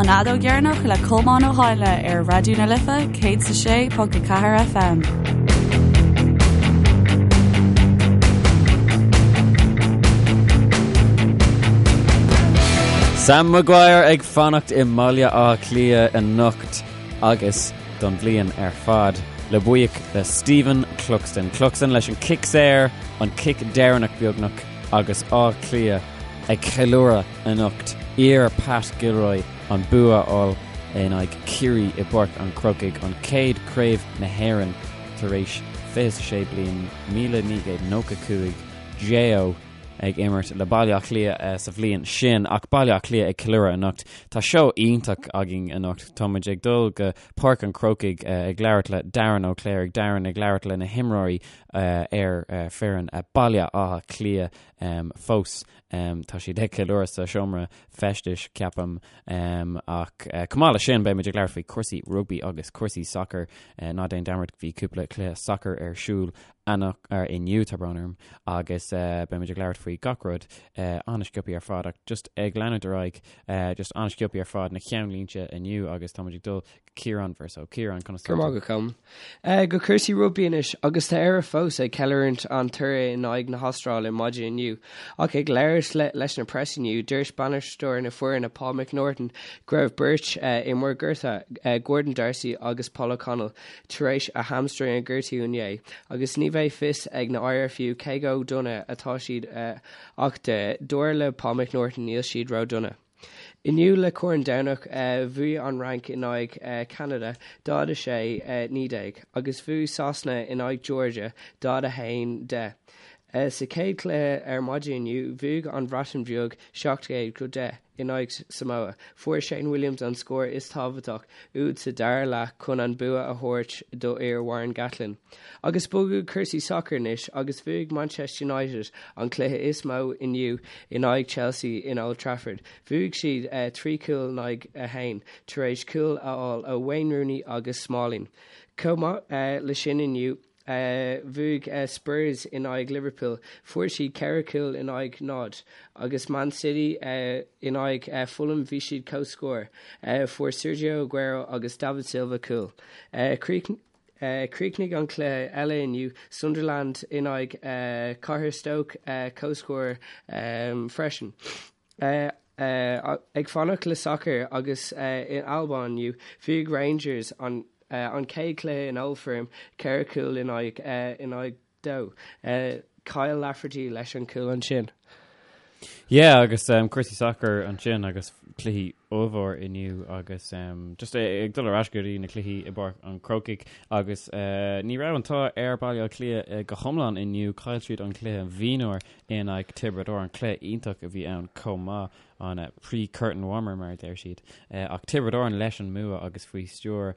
An Fheadóg Dheireanach le Colmán Ó hÁinle ar Raidió na Life 106.4 FM. Sam Maguire ag fanacht i mBaile Átha Cliath anocht agus don bhliain ar fad le buíoch le Stephen Cluxton. Cluxton leis an cic saor, an cic deireanach beagnach agus Áth Cliath ag ceiliúradh anocht iar Pat Gilroy an bua a fháil in aghaidh Ciarraí i bPáirc an Chrócaigh, an chéad Craobh na hÉireann tar éis 26 bliain, 1995, J.O. ag imirt le Baile Átha Cliath sa bhliain sin ach Baile Átha Cliath ag ceiliúradh anocht. Tá seó iontach againn anocht. Tá muid ag dul go Páirc an Chrócaigh ag labhairt le Darren Ó Cléirigh, Darren ag labhairt le na himreoirí ar foireann Baile Átha Cliath fós. Tá siad ag ceiliúradh sa seomra feistis, ceapaim. Ach chomh maith leis sin, beidh muid ag labhairt faoi chúrsaí rugbaí agus cúrsaí sacair. Ná déan dearmad, bhí cúpla cluiche sacair ar siúl inniu, tá brón orm, agus beidh muid ag labhairt faoi gach rud an-sciobtha ar fad. Ach just ag leanúint ar aghaidh, just an-sciobtha ar fad na ceannlínte inniu agus tá muid ag dul Ciarán Verso. Ciarán, conas tá tú? Go raibh maith agat, Colm. Go cúrsaí rugbaí anois, agus tá Éire fós ag ceiliúradh an toradh in aghaidh na hAstráile maidin inniu. Ach ag labhairt leis na press inniu, dúirt bainisteoir na foirne Paul McNaughton go raibh beirt imreoir gortaithe, Gordon D'Arcy agus Paul O'Connell, tar éis a hamstring a ghortú inné, agus ní bheidh fios ag na IRFU cé chomh dona atá siad ach dar le Paul McNaughton níl siad ró-dona. Inniu le Corn Domhnach bhuaigh an Fhrainc in aghaidh Cheanada 46, 19 agus bhuaigh Sasana in aghaidh Georgia 41, 10. Sa chéad chluiche ar maidin inniu bhuaigh an Bhreatain Bheag 17-10 in aghaidh Samoa. Fuair Shane Williams an scór is tábhachtach úd sa dara leath chun an bua a thabhairt do fhir Warren Gatland. Agus bogadh cúrsaí sacair anois agus bhuaigh Manchester United an cluiche is mó inniu in aghaidh Chelsea in Old Trafford. Bhuaigh siad 3 chúl in aghaidh 1 tar éis cúil a fháil ó Wayne Rooney agus Smalling. Chomh maith le sin inniu bhuaigh Spurs in aghaidh Liverpool, fuair siad 4 chúl in aghaidh 0, agus Man City in aghaidh Fulham bhí siad comhscór, fuair Sergio Aguero agus David Silva cúl. Chríochnaigh an cluiche eile inniu, Sunderland in aghaidh Cathair Stoke, comhscór freisin. Ag fanacht le sacar agus in Albain inniu, bhuaigh Rangers an chéad chluiche in Old Firm, 4 chúl in aghaidh 2. Kyle Lafferty leis an chúl ansin. Yeah, agus um, cúrsaí sacair ansin agus cluichí ollmhór inniu agus um, just ag dul ar ais go dtí na cluichí i bPáirc an Chrócaigh agus uh, ní raibh an t-ádh ar Baile Átha Cliath uh, go hiomlán inniu chaill siad an cluiche mhionúir in aghaidh Tiobraid Árann cluiche iontach a bhí ann chomh maith an uh, pre-curtain warmer mar a deir siad uh, ach Tiobraid Árann leis an mbua agus faoi stiúir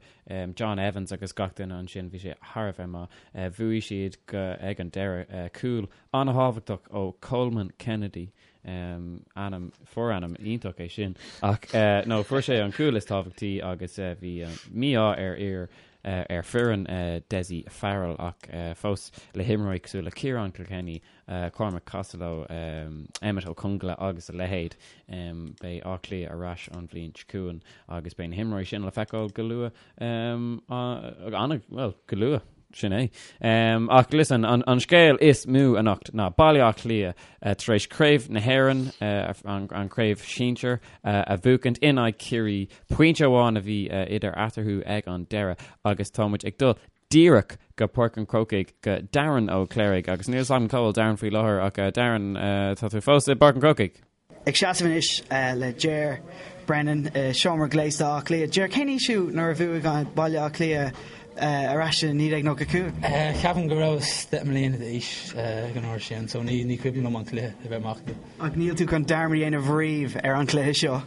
John Evans agus gach duine ansin, bhí sé thar a bheith maith. Bhuaigh siad go ag an deireadh. Cúl an-thábhachtach ó Coleman Kennedy, ainm, forainm iontach é sin, ach no, fuair sé an cúl is tábhachtaí agus bhí mí-ádh ar fhir ar foireann Dessie Farrell ach fós le himreoirí cosúil le Ciarán Kilkenny, Cormac Costello, Emmet Ó Conghaile agus a leithéid. Beidh Áth Cliath ar ais an bhliain seo chugainn agus beidh na himreoirí sin le feiceáil go luath, bhuel, go luath, sin é. Ach listen, an scéal is mó anocht ná Baile Átha Cliath tar éis Craobh na hÉireann, an chraobh shinsir, a bhuachaint in aghaidh Chiarraí. Pointe amháin a bhí idir eatarthu ag an deireadh agus tá muid ag dul díreach go Páirc an Chrócaigh go Darren Ó Cléirigh agus níl 'fhios agam cá bhfuil Darren faoi láthair ach Darren tá tú fós i bPáirc an Chrócaigh? Ag seasamh anois le Ger Brennan i seomra gléasta Átha Cliath. Ger, cén aois thú nuair a bhuaigh Baile Átha Cliath ar ais i 1995? Ceapaim go rabhas 10 mbliana d'aois ag an uair sin so ní ní cuimhin liom an cluiche a bheith amach. Ach níl tú chun dearmad a dhéanamh riamh ar an chluiche seo?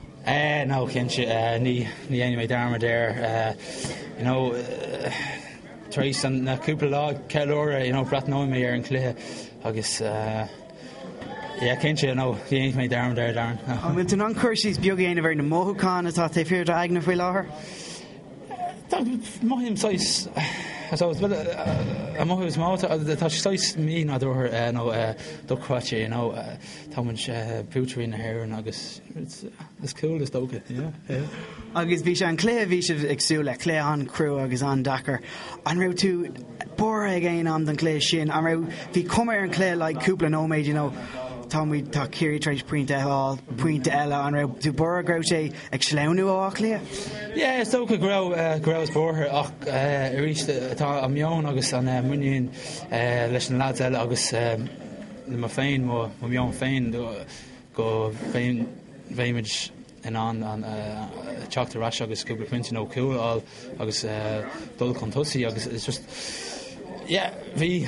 No, cinnte, ní dhéanfaidh mé dearmad air. You know, tar éis na cúpla lá ceiliúradh, you know, breathnóidh mé ar an chluiche agus yeah, cinnte, no, ní dhéanfaidh mé dearmad air, Darren. An bhfuil tú in ann cur síos beag a dhéanamh ar na mothúcháin atá taobh thiar d'aigne faoi láthair? Mothaím saghas. So an mothú is mó tá sé saghas mí-nádúrtha nó dochreidte, you know, tá muid buaiteoirí na hÉireann agus it's cool is dócha, yeah, yeah. Agus bhí sé an cluiche a bhí sibh ag súil le, cluiche an-chrua agus an-deacair. An raibh tú buartha ag aon am don chluiche sin? An raibh, bhí cuma ar an chluiche like cúpla nóiméad, you know, tá muid, tá Ciarraí tar éis pointe a fháil, pointe eile, an raibh tú buartha go raibh sé ag sleamhnú ó Áth Cliath? Yeah, is dócha go raibh, go rabhas buartha ach arís tá an meon agus an muinín leis na lads eile agus le mé féin, mo mheon féin go mbeimid in ann an teacht ar ais agus cúpla pointe nó cúl a fháil agus dul chun tosaigh agus it's just yeah bhí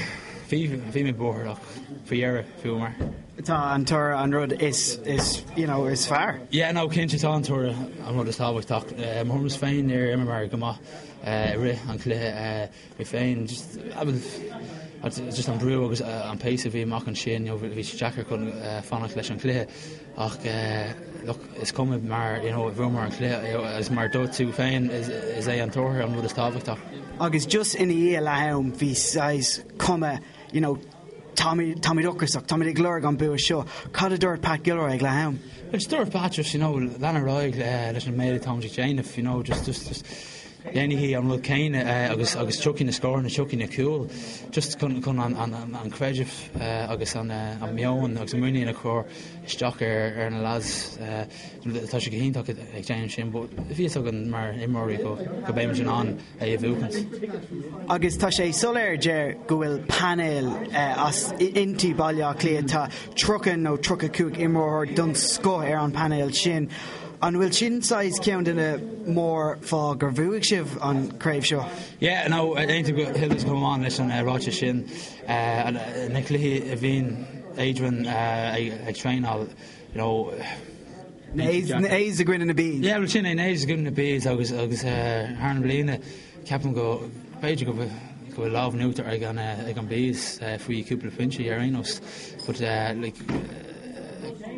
bhí bhí mé buartha ach faoi dheireadh bhuamar. Tá an toradh an rud is is you know is fearr. Yeah no cinnte tá an toradh an rud is tábhachtach. Mo thuairimse féin níor imreamar go maith i rith an chluiche. Mé féin just just an brú agus an pace a bhí amach ansin you know bhí sé deacair chun fanacht leis an chluiche ach look is cuma mar you know bhuamar an cluiche agus mar dúirt tú féin is é an toradh an rud is tábhachtach. Agus just ina dhiaidh leath-am bhí saghas cuma you know táimid táimid ocrasach, táimid ag lorg an bua seo. Cad a dúirt Pat Gilroy ag leath-am? Just dúirt Pat just you know lean ar aghaidh leis an méid atáimid ag déanamh you know just just just déanaigí an rud céanna agus agus tiocfaidh na scóranna, tiocfaidh na cúil just chun chun an an an creideamh agus an an meon agus an muinín a chur isteach ar ar na lads. Tá sé go hiontach ag déanamh sin but bhí fhios againn mar imreoirí go go mbeimid in ann é a bhuachaint. Agus tá sé soiléir Ger go bhfuil painéal as inti Baile Átha Cliath, tá 30 nó 35 imreoir den scoth ar an painéal sin. An bhfuil sin saghas ceann de na mórfháth gur bhuaigh sibh an craobh seo? Yeah, no, aontaím go huile is go hiomlán leis an ráiteas sin. Na cluichí a bhíonn Adrian ag traenáil, you know, Na A's i gcoinne na B's. Yeah, well sin é, na A's i gcoinne na B's agus agus thar na bliana ceapaim go b'fhéidir go go bhfuil lámh in uachtar ag an ag an B's faoi cúpla pointe ar aon nós. But like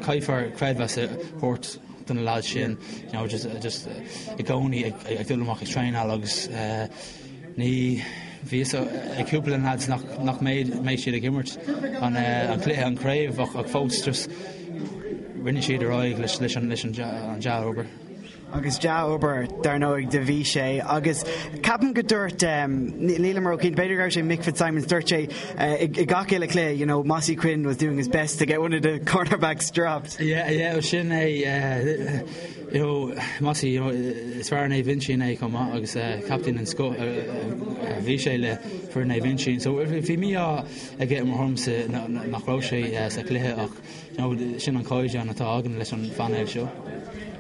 caithfear creidmheas a thabhairt do na lads sin, you know, just just i gcónaí ag ag dul amach ag traenáil agus ní bhí fhios ag cúpla de na lads nach nach mbeidh mbeidh siad ag imirt an an cluiche an craobh ach ach fós just rinne siad ar aghaidh leis leis an leis an dea-obair. Agus dea-obair, dar ndóigh, do bhí sé. Agus ceapaim go dúirt, nílim róchinnte, b'fhéidir go raibh sé Mick Fitzsimons, dúirt sé i gach uile chluiche, you know, Mossy Quinn was doing his best to get one of the cornerbacks dropped. Yeah, yeah, sin é, you know, Mossy, you know, is fear Naomh Uinseann é chomh maith agus captaen den scoth a bhí sé le foireann Naomh Uinseann. So bhí mí-ádh aige i mo thuairimse nach raibh sé sa chluiche ach You know, sin an caighdeán atá againn leis an phainéal seo.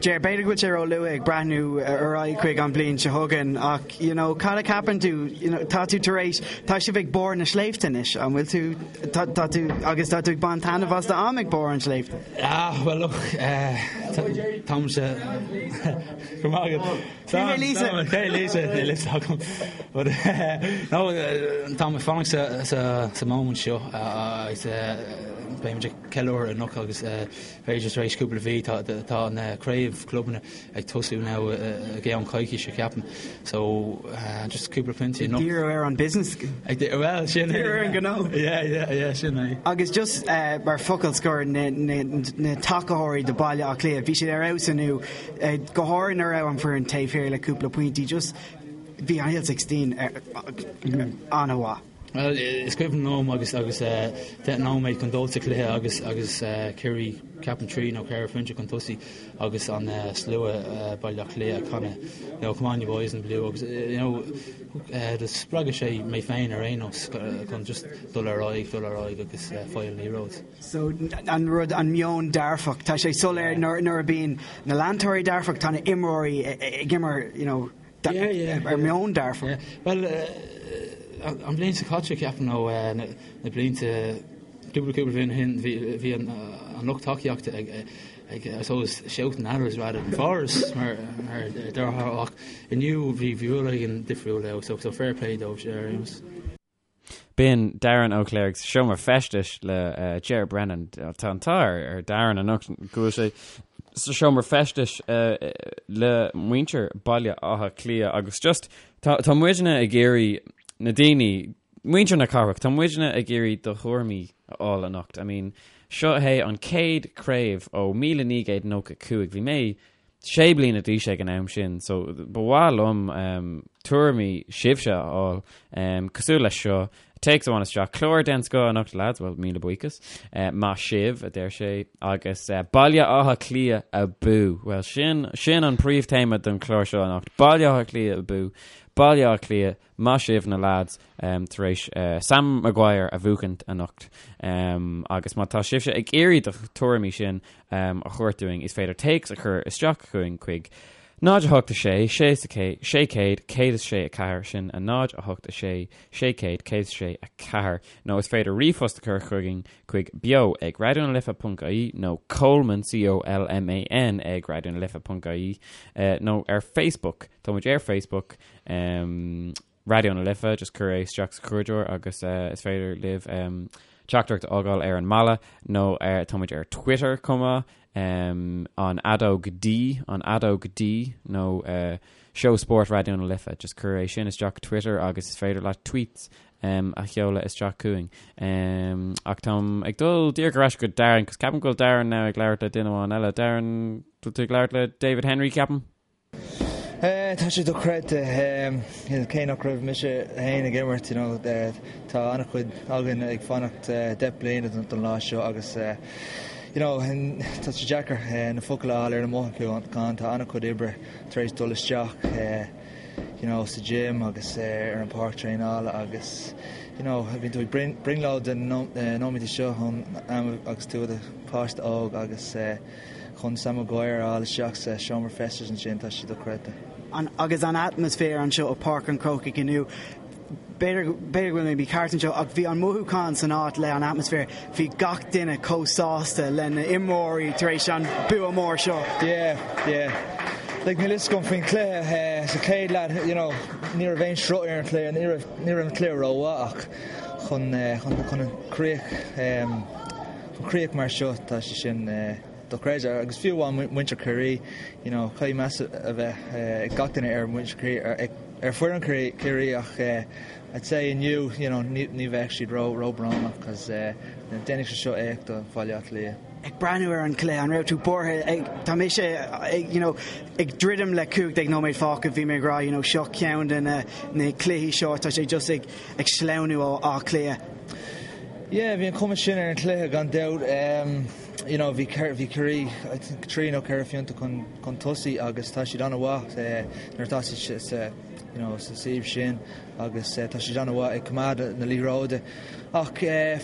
Ger, b'fhéidir go bhfuil sé ró-luath ag breathnú ar aghaidh chuig an bhliain seo chugainn ach, you know, cad a cheapann tú, you know, tá tú tar éis, tá sibh ag barr na sléibhte anois, an bhfuil tú, tá, tá tú, agus tá tú ag baint taitneamh as do am ag barr an sléibhte? Ah, well look, eh, táimse, go maith agat. Cé hé Lisa? Cé Lisa? Níl fhios agam. But, no, táim ag fanacht sa, sa, sa moment seo agus beimid ag ceiliúradh anocht agus b'fhéidir tar éis cúpla mhí tá, tá na craobh clubanna ag tosú now i gceann coicíse ceapaim. So, just cúpla pointe anocht. Ag díriú ar an business. Ag dí-, well, sin é. Díriú ar an gnó. Yeah, yeah, yeah, sin é. Agus just mar focal scoir, na, na, na tacaitheoirí do Baile Átha Cliath, bhí siad ar fheabhas inniu. Go háirithe nuair a raibh an foireann taobh thiar le cúpla pointí, just bhí an Hill 16 an-mhaith. Bhuel, is cuimhin liom agus agus 10 nóiméad chun dul sa chluiche agus agus Ciarraí ceapaim 3 nó 4 phointe chun tosaigh agus an slua Baile Átha Cliath ag canadh you know, come on you boys in blue agus you know, do spreag sé mé féin ar aon nós chun just dul ar aghaidh, dul ar aghaidh agus fáil an liathróid. So, an rud, an meon dearfach, tá sé soiléir nuair a bíonn na leantóirí dearfach, tá na imreoirí ag imirt, you know, ar meon dearfach. Bhuel, an bhliain seo caite, ceapaim, nó na blianta, cúpla cúpla bliain ó shin, bhí an lucht tacaíochta ag, ag, I suppose, shouting at us rather than for us, mar a déarfá, ach inniu bhí rud éigin difriúil ann, so fair play dóibh ar aon nós. B'in Darren Ó Cléirigh sa seomra feistis le Ger Brennan. Tá an t-ádh ar Darren anocht go bhfuil sé sa seomra feistis le muintir Baile Átha Cliath agus just tá tá muidne ag iarraidh Na daoine, muintir na cathrach, tá muidne ag iarraidh do thuairimí a fháil anocht. I mean, seo é an chéad craobh ó 1995. Bhí mé sé bliana d'aois ag an am sin, so ba mhaith liom um, tuairimí sibhse a fháil um, cosúil leis seo. Téacs amháin isteach, clár den scoth anocht lads, well míle buíochas. Uh, maith sibh, a deir sé, agus uh, Baile Átha Cliath abú. Well sin, sin an príomhtéama don chlár seo anocht. Baile Átha Cliath abú. Baile Átha Cliath, maith sibh na lads tar éis Sam Maguire a bhuachaint anocht. Agus má tá sibhse ag iarraidh do tuairimí sin a thabhairt dúinn, is féidir téacs a chur isteach chugainn chuig 0 8 6 6 600 106 4, sin a 0 8 6 600 106 4, nó is féidir ríomhphost a chur chugainn chuig beo ag raidionalife.ie nó Colman, C-O-L-M-A-N, ag raidionalife.ie nó ar Facebook. Tá muid ar Facebook, um, Raidió na Life, just cuir é isteach sa chuardaitheoir agus uh, is féidir libh um, teachtaireacht a fhágáil ar an mballa nó uh, tá muid ar Twitter chomh maith, um, an fheadóg D, an fheadóg D nó uh, Seó Spóirt Raidió na Life, just cuir é sin isteach Twitter agus is féidir leat tweets um, a sheoladh isteach chugainn. Um, ach táim ag dul díreach ar ais go Darren, cos ceapaim go bhfuil Darren now ag labhairt le duine amháin eile. Darren, bhfuil tú ag labhairt le David Henry, ceapaim? Tá sé dochreidte, cé nach raibh mise féin ag imirt, you know, tá an-chuid againn ag fanacht 10 bliana don lá seo agus you know, tá sé deacair na focail a fháil ar na mothúcháin, tá an-chuid oibre tar éis dul isteach you know, sa gym agus ar an páirc traenála agus you know, bíonn tú ag brionglóid de na nóiméadaí seo ón am agus tú i do pháiste óg agus Chun Sam Maguire a fháil isteach sa seomra feistis ansin, tá sé dochreidte. An, agus an atmaisféar anseo i Páirc an Chrócaigh inniu, b'fhéidir, b'fhéidir go bhfuil mé mícheart anseo, ach bhí an mothúchán san áit le an atmaisféar, bhí gach duine chomh sásta le na imreoirí tar éis an bua mór seo. Yeah, yeah. Like, níl fhios agam faoin chluiche, sa chéad leath, you know, ní raibh aon sruth ar an chluiche, ní raibh, ní raibh an cluiche rómhaith ach chun, chun, chun an críoch, Chun críoch mar seo, tá sé sin dochreidte. Agus fiú amháin muintir Chiarraí, you know, caithfidh meas a bheith ag gach duine ar mhuintir Chiarraí, ar foireann Chiarraí ach I'd say inniu, you know, ní bheadh siad ró, róbhrónach cos déanfaidh sé seo éacht do Bhaile Átha Cliath. Ag breathnú ar an chluiche, an raibh tú buartha ag, tá mise ag, you know, ag druidim le 15 nóiméad fágtha, bhí mé ag rá, you know, seo ceann de na, na cluichí seo, tá sé just ag, ag sleamhnú ó Áth Cliath. Yeah, bhí an chuma sin ar an chluiche gan dabht. You know, bhí bhí Ciarraí I think trí nó ceithre phointe chun chun tosaigh agus tá siad an-mhaith nuair atá siad sa you know, sa suíomh sin agus tá siad an-mhaith ag coimeád na liathróide. Ach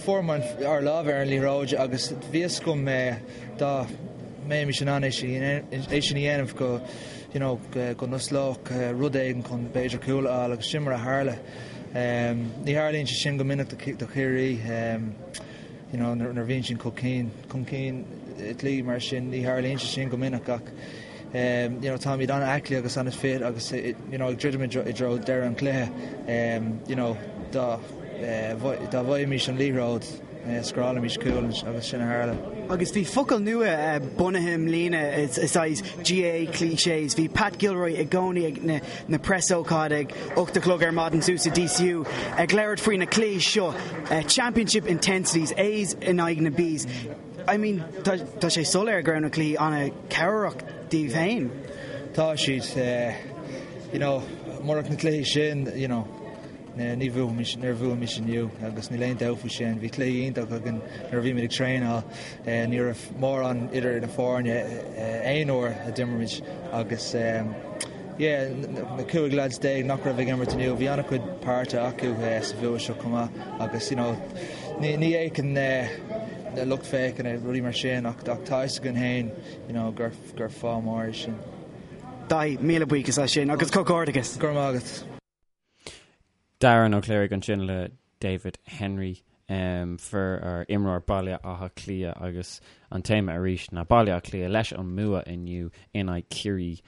fuair muid ár lámh ar an liathróid agus bhí fhios agam dá mbeimis in ann é sin é sin a dhéanamh go you know, go n-osclódh rud éigin chun b'fhéidir cúl a fháil agus sin mar a tharla. Ní tharlaíonn sé sin go minic do Chiarraí, you know, nuair a bhíonn siad chun cinn, chun cinn i gcluichí mar sin, ní tharlaíonn sé sin go minic ach you know, táimid an-aclaí agus an-fit agus you know, ag druidim i dtreo deireadh an chluiche, you know, dá dá bhfaighimis an liathróid, scórálfaimis cúl agus sin a tharla. Agus bhí focal nua bunaithe i mbliana, is saghas GAA clichés. Bhí Pat Gilroy i gcónaí ag na na preasócáid ag 8 a chlog ar maidin suas i DCU ag labhairt faoi na cluichí seo, championship intensities, A's in aghaidh na B's. I mean, tá tá sé soiléir go raibh na cluichí an-chabhrach daoibh féin. Tá siad, you know, murach na cluichí sin, you know, Ní bhuafaimis, níor bhuaigh inniu agus níl aon dabht faoi sin. Bhí cluichí iontach againn nuair a bhí muid ag traenáil. Ní raibh mórán idir na foirne aon uair a d'imir muid agus yeah, na 15 lads nach raibh ag imirt inniu, bhí an-chuid páirte acu sa bhua seo chomh maith agus you know, ní ní fhéachann na lucht féachana rudaí mar sin ach tá fhios againn féin you know, gur gur fáth mór é sin. Daithí, míle buíochas as sin agus comhghairdeachas. Go raibh maith agat. Darren Ó Cléirigh ansin le David Henry, fear ar imreoir Baile Átha Cliath agus an téama arís ná Baile Átha Cliath leis an mbua inniu in aghaidh Ciarraí.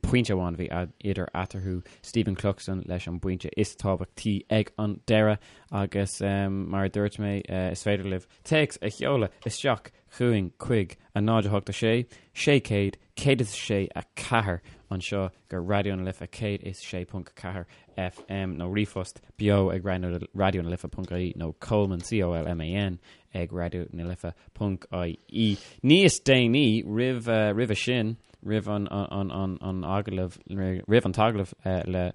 Pointe amháin a bhí idir eatarthu, Stephen Cluxton leis an bpointe is tábhachtaí ag an deireadh agus mar a dúirt mé is féidir libh téacs a sheoladh isteach. chugainn chuig 0 8 6 600 106 4 anseo go Raidió na Life 106.4 FM nó ríomhphost beo ag Raidió na Life.ie nó Colman, C-O-L-M-A-N, ag Raidió na Life.ie. Níos déanaí roimh roimhe sin, roimh an an an agallamh roimh an t-agallamh le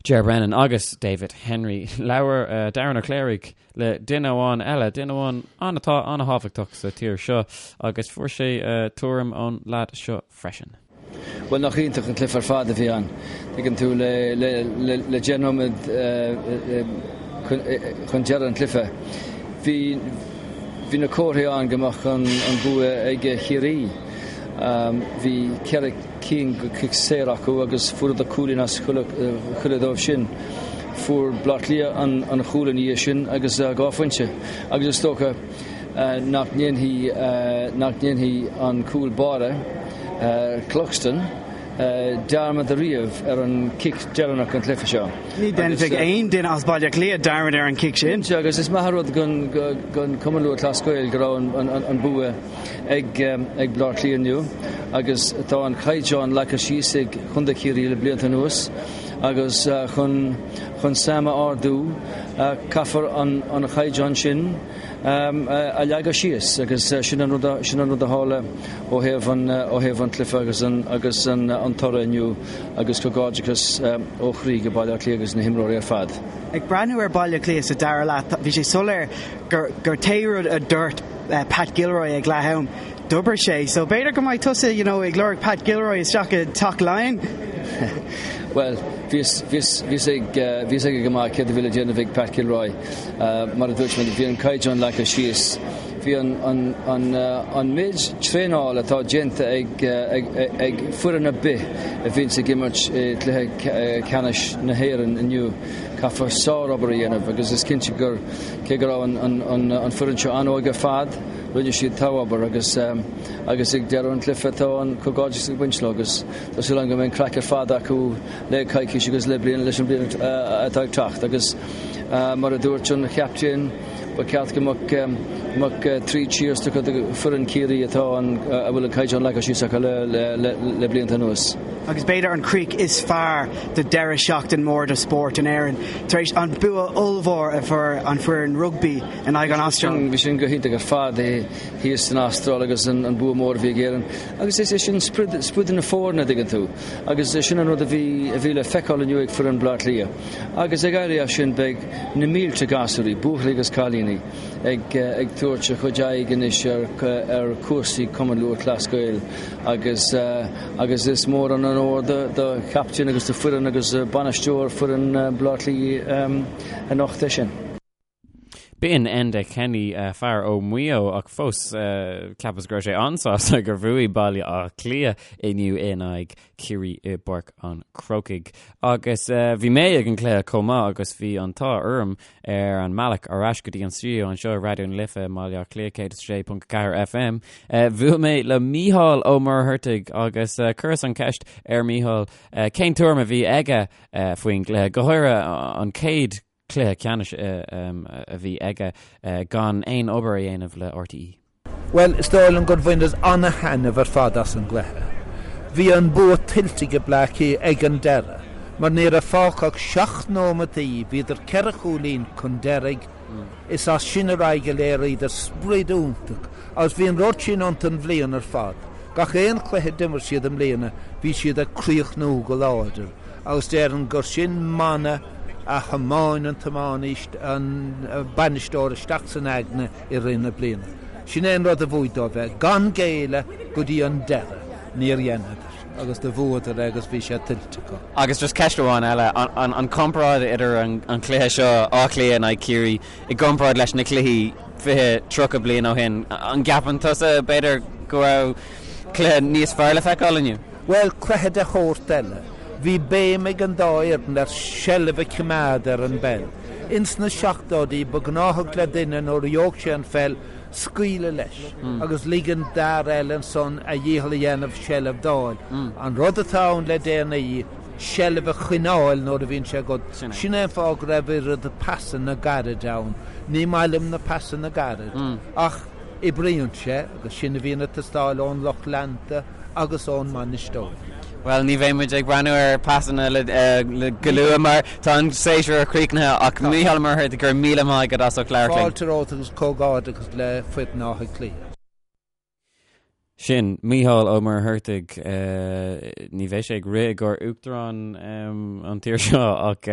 Ger Brennan agus David Henry, labhair Darren Ó Cléirigh le duine amháin eile, duine amháin an atá an-thábhachtach sa tír seo agus fuair sé tuairim ón leaid seo freisin. Bhuel, nach iontach an cluiche ar fad a bhí ann. Tuigeann tú, le 10 nóiméad chun deireadh an chluiche, bhí bhí na comharthaí ann go mbeadh an bua ag Ciarraí. Bhí ceithre cinn de chic saor acu agus fuaireadar cúilín as chuile dóibh sin. Fuair Baile Átha Cliath an chúl ina dhiaidh sin agus 2 phointe agus is dócha nach ndéanfaidh nach ndéanfaidh an cúl báire, Cluxton, dearmad ariamh ar an chic deireanach den chluiche seo. Ní dhéanfaidh aon duine as Baile Átha Cliath dearmad ar an chic sin. Cinnte, agus is maith an rud don Chumann Lúthchleas Gael go raibh an bua ag Baile Átha Cliath inniu agus tá an caighdeán leagtha síos ag Contae Chiarraí le blianta anuas agus chun chun Sam a ardú caithfear an chaighdeán sin a leagadh síos agus sin an rud sin an rud a tharla ó thaobh an ó thaobh an cluiche agus an agus an an toradh inniu agus comhghairdeachas ó chroí go Baile Átha Cliath agus na himreoirí ar fad. Ag breathnú ar Baile Átha Cliath sa dara leath bhí sé soiléir gur gur pé rud a dúirt Pat Gilroy ag leath am d'oibir sé so b'fhéidir go mbeidh tusa you know ag lorg Pat Gilroy isteach i dTeach Laighean. Bhuel bhí bhí ag bhí ag go maith céard a bhí le déanamh ag Pat Gilroy. Mar a dúirt mé bhí an caighdeán leagtha síos. Bhí an méid traenáil atá déanta ag foireann ar bith a bhíonns ag imirt i gcluiche ceannais na hÉireann inniu, caithfear sárobair a dhéanamh agus is cinnte gur, cé go raibh an foireann seo an-óg ar fad, rinne siad togha-obair agus agus ag deireadh an chluiche tá an comhghairdeas ag baint leo agus tá súil agam go mbeidh an craic ar fad acu le coicís agus le bliain leis an bliain atá ag teacht agus mar a dúirt an chaptaen ba cheart go mbeadh 3 cheers tugtha do foireann Chiarraí atá an a bhfuil an caighdeán leagtha síos acu le blianta anuas. Agus b'fhéidir an críoch is fearr do deireadh seachtain mór de spórt in Éirinn tar éis an bua ollmhór a fuair an foireann rugbaí in aghaidh an Astráil. Bhí sin go hiontach ar fad thíos san Astráil agus an bua mór a bhí ag Éirinn agus is é sin sprid na foirne, an dtuigeann tú. Agus sin an rud a bhí a bhí le feiceáil inniu ag foireann Bhaile Átha Cliath. Agus ag éirí as sin beidh na mílte gasúirí, buachaillí agus cailíní, ag ag tabhairt a chuid aghaidh anois ar ar chúrsaí Cumann Lúthchleas Gael agus agus is mór an onóir do do chaptaen agus do foireann agus bainisteoir foireann Bhaile Átha Cliath anocht é sin. B'in Enda Kenny, fear ó Mhaigh Eo ach fós cheapas go raibh sé an-sásta gur bhuaigh Baile Átha Cliath inniu in aghaidh Ciarraí i bPáirc an Chrócaigh. Agus bhí mé ag an gcluiche chomh maith agus bhí an t-ádh orm ar an mbealach ar ais go dtí an stiúideo anseo i Raidió na Life i mBaile Átha Cliath 106.4 FM. Bhuail mé le Mícheál Ó Muircheartaigh agus chuireas an cheist ar Mícheál cén tuairim a bhí aige faoin gcluiche, go háirithe an chéad cluiche ceannais a bhí aige gan aon obair a dhéanamh le RTÉ. Bhuel, is dóigh liom gur bhaineas ana-thaitneamh ar fad as an gcluiche. Bhí an bua tuillte ag Bleá Cliath ag an deireadh, mar ní raibh fágtha ach seacht nóimeataí, bhíodar ceithre chúilín chun deiridh, is as sin ar aghaidh a léiríodar sprid iontach agus bhí an rud sin iontu an bhliain ar fad. Gach aon chluiche a d'imir siad i mbliana, bhí siad ag críochnú go láidir agus déarfainn gur sin mana a thiomáin an tiománaí, an bainisteoir isteach san aigne i rith na bliana. Sin é an rud a bhuaigh dóibh é, gan géilleadh go dtí an deireadh. Níor dheineadar agus do bhuadar é agus bhí sé tuillte acu. Agus just ceist amháin eile, an comparáid idir an cluiche seo, Áth Cliath in aghaidh Ciarraí, i gcomparáid leis na cluichí 20, 30 bliain ó shin, an gceapann tusa, b'fhéidir, go raibh cluiche níos fearr le feiceáil inniu? Bhuel, cluiche de shórt eile. Bhí béim ag an dá fhoireann ar seilbh a choimeád ar an bpeil. Ins na seachtóidí, ba ghnáthach le duine nuair a gheobhadh sé an pheil, scaoileadh leis agus ligean d'fhear eile ansan a dhícheall a dhéanamh seilbh d'fháil. An rud atá ann le déanaí, seilbh a choinneáil nuair a bhíonn sé agat. Sin é an fáth go raibh oiread pasanna gairid ann. Ní maith liom na pasanna gairid. Ach. Oibríonn sé agus sin a bhíonn ag teastáil ón lucht leanta agus ón mbainisteoir. Bhuel, ní bheidh muid ag breathnú ar pasanna le go luath mar tá an séasúr críochnaithe ach Mícheál Ó Muircheartaigh, go raibh míle maith agat as ucht labhairt linn. Fáilte romhat agus comhghairdeachas le foireann Átha Cliath. Sin Mícheál Ó Muircheartaigh. Ní bheidh sé ag rith i gcomhair uachtarán an tír seo ach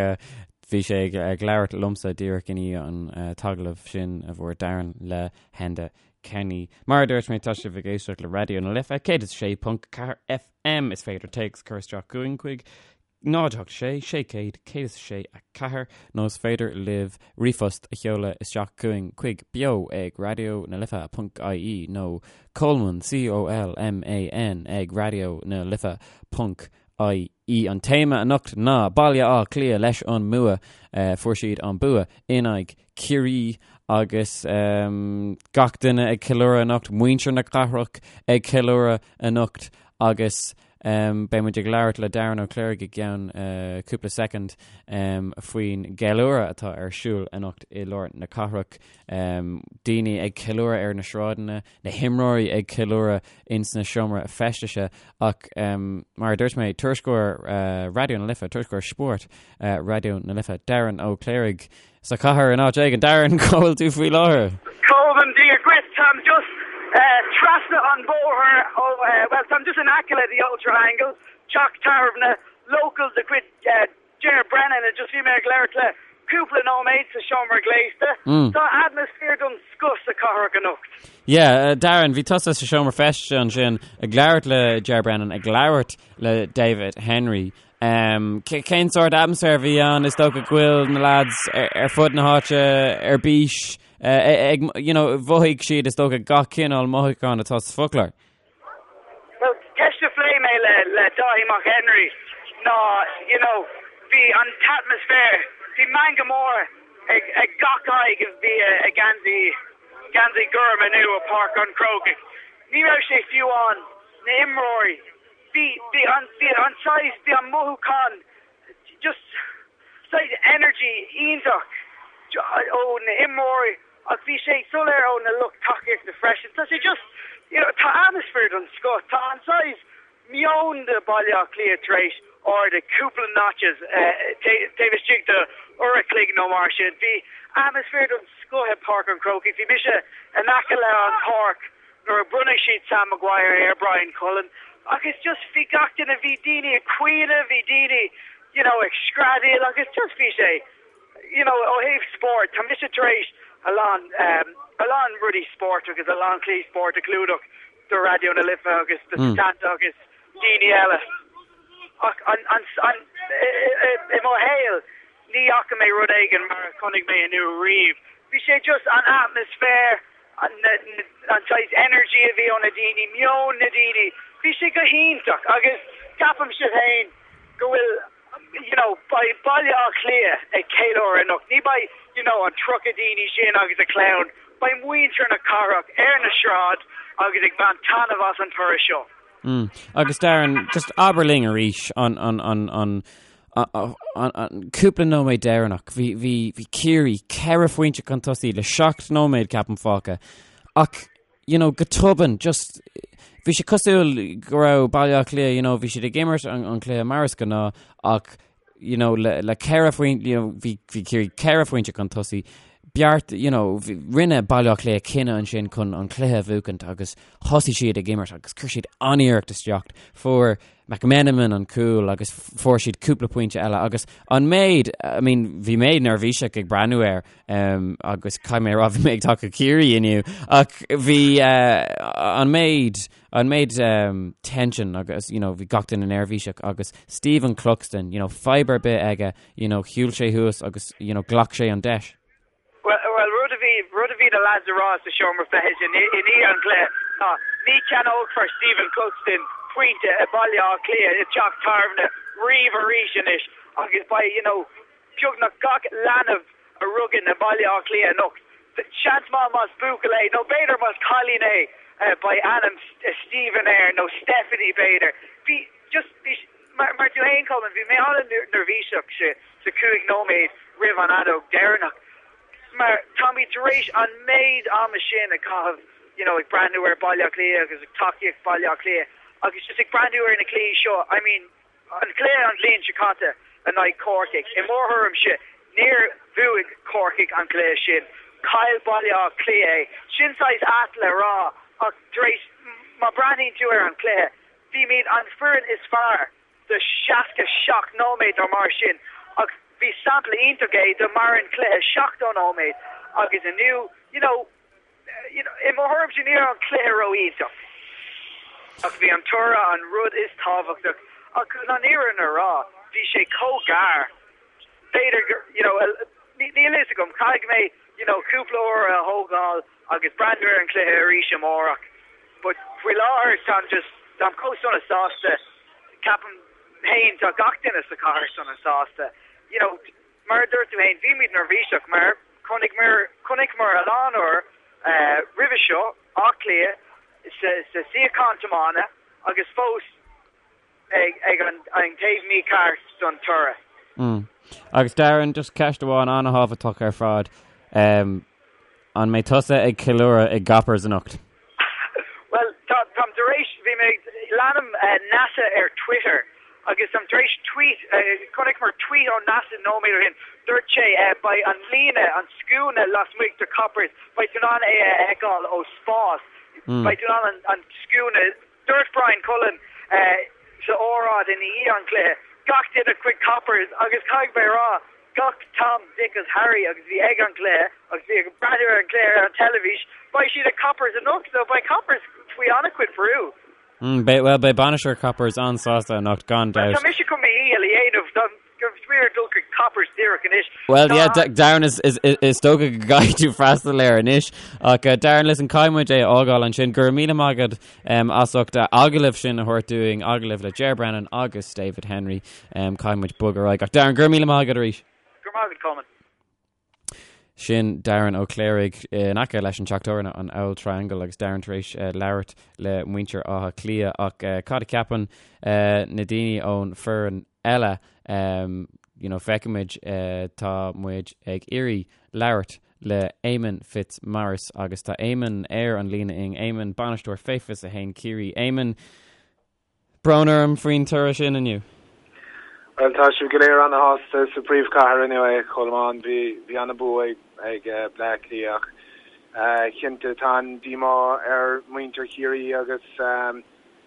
bhí sé ag labhairt liomsa díreach i ndiaidh an t-agallamh sin a bhfuair Darren le hEnda Kenny. Mar a dúirt mé, tá sibh ag éisteacht le Raidió na Life 106.4 FM. Is féidir téacs a chur isteach chugainn chuig 0 8 6 600 106 4 nó is féidir libh ríomhphost a sheoladh isteach chugainn chuig beo ag raidió na life ponc ie nó Colman, C-O-L-M-A-N, ag raidió na life ponc ie. An téama anocht ná Baile Átha Cliath leis an mbua. Fuair siad an bua in aghaidh Ciarraí agus gach duine ag ceiliúradh anocht, muintir na cathrach ag ceiliúradh anocht agus Beidh muid ag labhairt le Darren Ó Cléirigh i gceann cúpla soicind faoin gceiliúradh atá ar siúl anocht i lár na cathrach. Daoine ag ceiliúradh ar na sráideanna, na himreoirí ag ceiliúradh ins na seomra feistise ach mar a dúirt mé, tuairisceoir Raidió na Life, tuairisceoir spóirt Raidió na Life, Darren Ó Cléirigh, Sa chathair in áit éigin. Darren, cá bhfuil tú faoi láthair? Colman, Dia dhuit, táim just trasna an bhóthair ó, bhuel, táim just in aice le The Old Triangle, teach tábhairne local de chuid Ger Brennan, and just bhí mé ag labhairt le cúpla nóiméad sa seomra gléasta. Tá atmaisféar den scoth sa chathair anocht. Yeah, Darren, bhí tusa sa seomra feistise ansin ag labhairt le Ger Brennan, ag labhairt le David Henry. Cén sórt atmaisféar a bhí ann? Is dócha go bhfuil na lads ar fud na háite ar bís ag, you know, mhothaigh siad is dócha gach cineál mothúchán atá sa foclóir. Well, ceist a phléigh mé le le Dáithí Mac Henry ná, you know, bhí an t-atmaisféar, bhí meangadh mór ag ag gach aghaidh a bhí ag geansaí geansaí gorm inniu i Páirc an Chrócaigh. Ní raibh sé fiú ann na imreoirí Bhí, bhí an, bhí an saghas, bhí an mothúchán just saghas energy iontach ó na imreoirí ach bhí sé soiléir ó na lucht tacaíochta freisin. Tá sé just, you know, tá atmaisféar den scoth, tá an saghas meon de Baile Átha Cliath tar éis ardú cúpla notches taobh istigh de uair a chloig nó mar sin. Bhí atmaisféar den scoth i Páirc an Chrócaigh. Bhí mise in aice le an páirc nuair a bronnadh siad Sam Maguire ar Bryan Cullen agus just bhí gach duine, bhí daoine ag caoineadh, bhí daoine you know ag screadaíl agus just bhí sé you know ó thaobh spóirt, tá mise tar éis a lán um, a lán rudaí spóirt agus a lán cluichí spóirt a chlúdach do Raidió na Life agus do Setanta agus daoine eile ach an, an, an, i, i mo shaol ní fhaca mé rud éigin mar a chonaic mé inniu riamh. Bhí sé just an atmaisféar, an saghas energy a bhí ó na daoine, meon na daoine, bhí sé go hiontach agus ceapaimse féin go bhfuil you know beidh Baile Átha Cliath ag ceiliúradh anocht, ní beidh you know an 30 daoine sin agus a clann, beidh muintir na cathrach ar na sráid agus ag baint taitneamh as an toradh seo. Mm. Agus Darren, just abair linn arís an, an, an, an, an cúpla nóiméad deireanach. Bhí, bhí, bhí Ciarraí ceithre phointe chun tosaigh le seacht nóiméad ceapaim fágtha. Ach, you know, go tobann, just, bhí sé cosúil go raibh Baile Átha Cliath, you know, bhí siad ag imirt an, an cluiche mar is gnáth, ach, you know, le, le ceithre phointe, you know, bhí, bhí Ciarraí ceithre phointe chun tosaigh, beart, you know, rinne Baile Átha Cliath cinneadh ansin chun an cluiche a bhuachaint agus thosaigh siad ag imirt agus chuir siad an-iarracht isteach. Fuair McMenamin an cúl agus fuair siad cúpla pointe eile agus an méid, I mean, bhí mé neirbhíseach ag breathnú air um, agus caithfidh mé a rá bhí mé ag tacú Ciarraí inniu ach bhí uh, an méid an méid um, tension agus you know, bhí gach duine neirbhíseach agus Stephen Cluxton, you know, fadhb ar bith aige, you know, shiúil sé thuas agus you know, ghlac sé an deis. Well, well, rud a bhí, rud a bhí na lads a rá sa seomra feithis i ndiaidh an chluiche ná ní cheannófar Stephen Cluxton pointe i Baile Átha Cliath i dteach tábhairne riamh arís anois agus beidh, you know, beagnach gach leanbh a rugadh i mBaile Átha Cliath anocht, seans maith más buachaill é nó b'fhéidir más cailín é beidh ainm Stephen air nó Stephanie b'fhéidir. Bhí just, bhí, mar, mar tú fhéin Colman, bhí mé an-neirbhíseach sa chúig nóiméad roimh an fheadóg deireanach mar táimid tar éis an méid ama sin a chaitheamh. you know, ag breathnú ar Baile Átha Cliath agus ag tacaíocht Baile Átha Cliath agus just ag breathnú ar na cluichí seo, I mean, an cluiche an bhliain seo caite in aghaidh Corcaigh, i mo thuairimse, níor bhuaigh Corcaigh an cluiche sin, chaill Baile Átha Cliath é. Sin saghas ait le rá ach tar éis, má breathnaíonn tú ar an cluiche, bhímid an foireann is fearr do 67 nóiméad nó mar sin ach bhí sampla iontach é do maireann cluiche 70 nóiméad agus inniu, you know, you know, i mo thuairimse ní raibh an cluiche ró-iontach ach bhí an toradh an rud is tábhachtach ach chun an fhírinne a rá bhí sé chomh gar b'fhéidir gur, you know, níl fhios agam, caithfidh mé, you know, cúpla uair a thógáil agus breathnú ar an cluiche arís amárach but faoi láthair táim just, táim chomh sona sásta, ceapaim féin tá gach duine sa chathair sona sásta, you know, mar a dúirt tú féin bhímid neirbhíseach mar chonaiceamar, chonaiceamar a lán uair roimhe seo Áth Cliath sa, sa suíochán tiomána agus fós ag an taobh mícheart don toradh. Mm. Agus Darren, just ceist amháin an-thábhachtach ar fad. Um, an mbeidh tusa ag ceiliúradh i gCoppers anocht? Well, táim tar éis, bhí mé, leanaim uh, NASA ar Twitter agus táim tar éis tweet, uh, chonaiceamar tweet ó NASA nóiméad ó shin, dúirt sé uh, beidh an líne, an scuaine lasmuigh de Coppers, beidh tú in ann é a fheiceáil ó spás, mm. beidh tú in ann an, an scuaine Dúirt Bryan Cullen sa óráid i ndiaidh an chluiche, gach duine chuig Coppers agus caithfidh mé a rá, gach Tom, Dick agus Harry agus bhí ag an gcluiche agus bhí ag breathnú ar an gcluiche ar an teilifís, beidh siad ag Coppers anocht so beidh Coppers faoi an-chuid brú. Beidh, bhuel, beidh bainisteoir Coppers an-sásta anocht gan dabht. Tá mise chun mo dhícheall a dhéanamh. Bhuel, yeah, Darren, is, is, is dócha go gcaithfidh tú freastal air anois. Ach uh, Darren, listen, caithfidh muid é a fhágáil ansin. Go raibh míle maith agat um, as ucht uh, agallamh sin a thabhairt dúinn, agallamh le Ger Brennan agus David Henry. Um, caithfidh muid bogadh ar aghaidh. Ach Darren, go raibh míle maith agat arís. Go raibh maith agat, Colman. Sin Darren Ó Cléirigh in aice leis an teach tábhairne an Auld Triangle agus Darren tar éis labhairt le muintir Átha Cliath ach cad a cheapann na daoine ón foireann eile? You know, feicfimid, tá muid ag iarraidh labhairt le Éamonn Fitzmaurice agus tá Éamonn ar an líne linn, Éamonn, bainisteoir Fé 21 Ciarraí. Éamonn, Brón orm faoin toradh sin inniu. Bhuel, tá sibh go léir ana-shásta sa bpríomhchathair inniu, a Cholmáin. Bhí, bhí ana-bua ag, ag Bleá Cliath ach cinnte tá an díomá ar mhuintir Chiarraí agus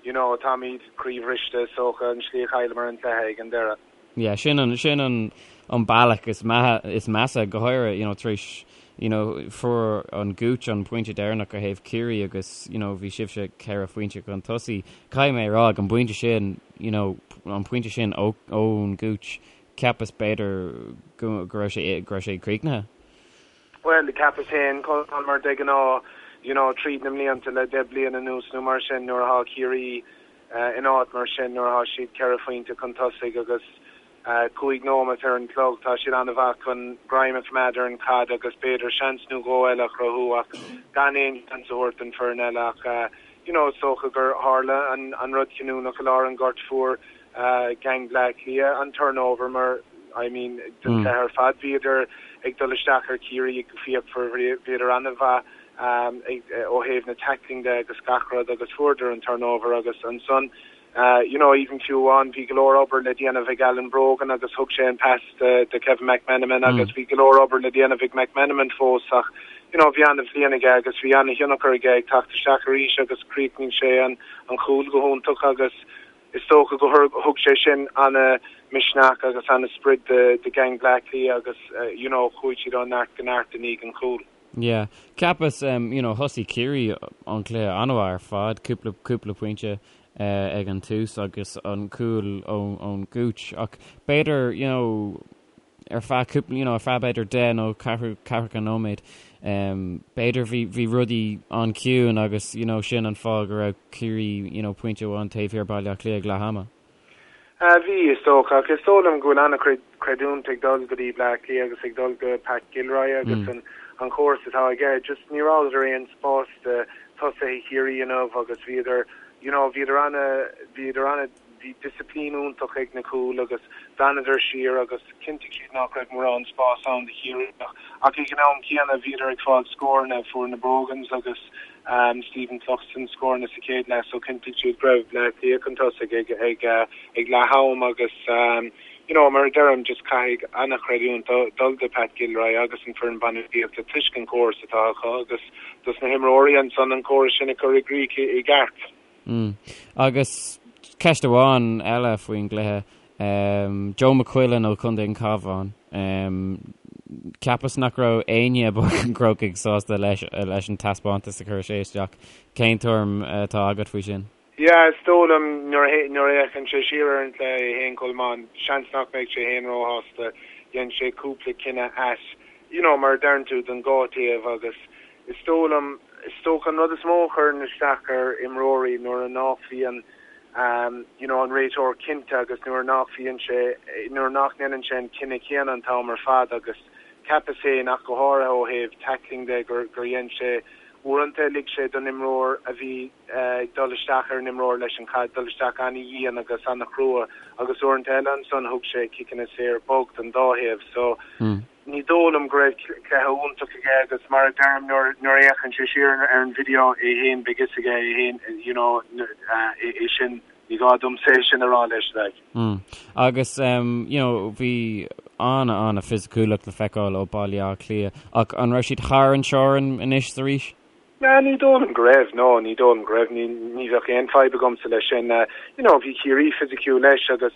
you know, táimid croíbhriste is dócha an slí a chailleamar an cluiche ag an deireadh. Yeah, sin an, sin an, an bealach is maithe, is measa, go háirithe, you know, tar éis, you know, fuair an Gooch an pointe deireanach ó thaobh Ciarraí agus, you know, bhí sibhse ceithre phointe chun tosaigh. Caithfidh mé a rá, ag an bpointe sin, you know, an pointe sin ó, ón Gooch, cheapas b'fhéidir go, go raibh sé, go raibh sé críochnaithe. Bhuel, cheapas féin, Colmán, mar de ghnáth, you know, tríd na mblianta le deich bliana anuas nó mar sin, nuair atá Ciarraí, in áit mar sin nuair atá siad ceithre phointe chun tosaigh agus 5 nóimeat ar an chlog, tá siad an-mhaith chun greim a choimeád ar an chaid agus b'fhéidir seans nó dhó eile a chruthú ach gan aon seans a thabhairt don foireann eile ach you know is dócha gur tharla an rud cinniúnach i lár an ghoirt fuair gang Bleá Cliath an turnover mar I mean den chluiche ar fad bhíodar ag dul isteach ar Chiarraí go fíochmhar bhíodar an-mhaith ó thaobh na tackling de agus gach rud agus fuaireadar an turnover agus ansan you know even fiú amháin bhí go leor obair le déanamh ag Alan Brogan agus thug sé an pass do Kevin McMenamin agus bhí go leor obair le déanamh ag McMenamin fós ach you know bhí an-bhliain aige agus bhí an-thionchar aige ag teacht isteach arís agus chríochnaigh sé an an chúl go hiontach agus is dócha go thug sé sin ana-misneach agus ana-sprid do gang Bleá Cliath agus you know chuaigh siad ó neart go neart i ndiaidh an chúil. Yeah. Cheapas, you know, thosaigh Ciarraí an cluiche an-mhaith ar fad, cúpla, cúpla pointe ag an tús agus an cúl ón Gooch ach b'fhéidir, you know, ar feadh cúpla, you know, ar feadh b'fhéidir 10 nó ceathrú, ceathracha nóiméad, b'fhéidir bhí, bhí rudaí an-chiúin agus, you know, sin an fáth go raibh Ciarraí, you know, pointe amháin taobh thiar Baile Átha Cliath ag leath ama. Bhí, is dócha, ach is dóigh liom go bhfuil an-chuid creidiúint ag dul go dtí Bleá Cliath agus ag dul go Pat Gilroy agus an an chóras atá aige. Just ní rabhadar aon spás do tosaithe Chiarraí inniu agus bhíodar, you know, bhíodar ana, bhíodar ana, bhí disciplín iontach ag na cúil agus d'fhanadar siar agus chinntigh siad nach raibh mórán spás ann do Chiarraí ach ag an am céanna bhíodar ag fáil scóranna, fuair na Brogans agus. Stephen Cluxton scóranna sa chéad leath so chinntigh siad go raibh Bleá Cliath chun tosaigh ag ag ag leath am agus you know mar a deirim just caithfidh an-chreidiúint dul do Pat Gilroy agus an foireann bainistíochta toisc an córas atá acu agus dos na himreoirí ansan an córas sin a chur i gcrích i gceart. Mm. Agus ceist amháin eile faoin gcluiche, Joe McQuillan ó Chontae an Chabháin, cheapas nach raibh éinne i bPáirc an Chrócaigh sásta leis leis an taispeántas a chuir sé isteach. Cén tuairim atá agat faoi sin? Yeah, is dóigh liom nuair a nuair a fhéachann sé siar ar an gcluiche é féin Colmán, seans nach mbeidh sé féin róshásta. Dhein sé cúpla cinneadh ait, you know, mar a deireann tú, don dhá taobh agus Is dóigh liom, is dócha an rud is mó a chuireann isteach ar imreoirí nuair a nach bhíonn you know an réiteoir cinnte agus nuair nach bhíonn sé, nuair nach ndéanann sé an cinneadh céanna an t-am ar fad agus cheapas féin ach go háirithe ó thaobh tackling de gur gur dhein sé uaireanta lig sé don imreoir a bhí ag dul isteach ar an imreoir leis an chaid dul isteach an-dhian agus an-chrua agus uaireanta eile ansan thug sé ciceanna saor bog don dá thaobh so Ní dóigh liom go raibh cluiche iontach aige agus mar a deirim nuair nuair a fhéachann sé siar ar an video é féin beidh fhios aige é féin you know é sin ní gá domsa é sin a rá leis like. Mm. Agus um, you know, bhí ana ana fisiciúlacht le feiceáil ó Baile Átha Cliath ach an raibh siad thar an teorainn anois is arís? Nah, ní dóigh liom go raibh, no, ní dóigh liom go raibh, ní, ní bheadh aon fadhb agamsa leis sin. You know, bhí Ciarraí fisiciúil leis agus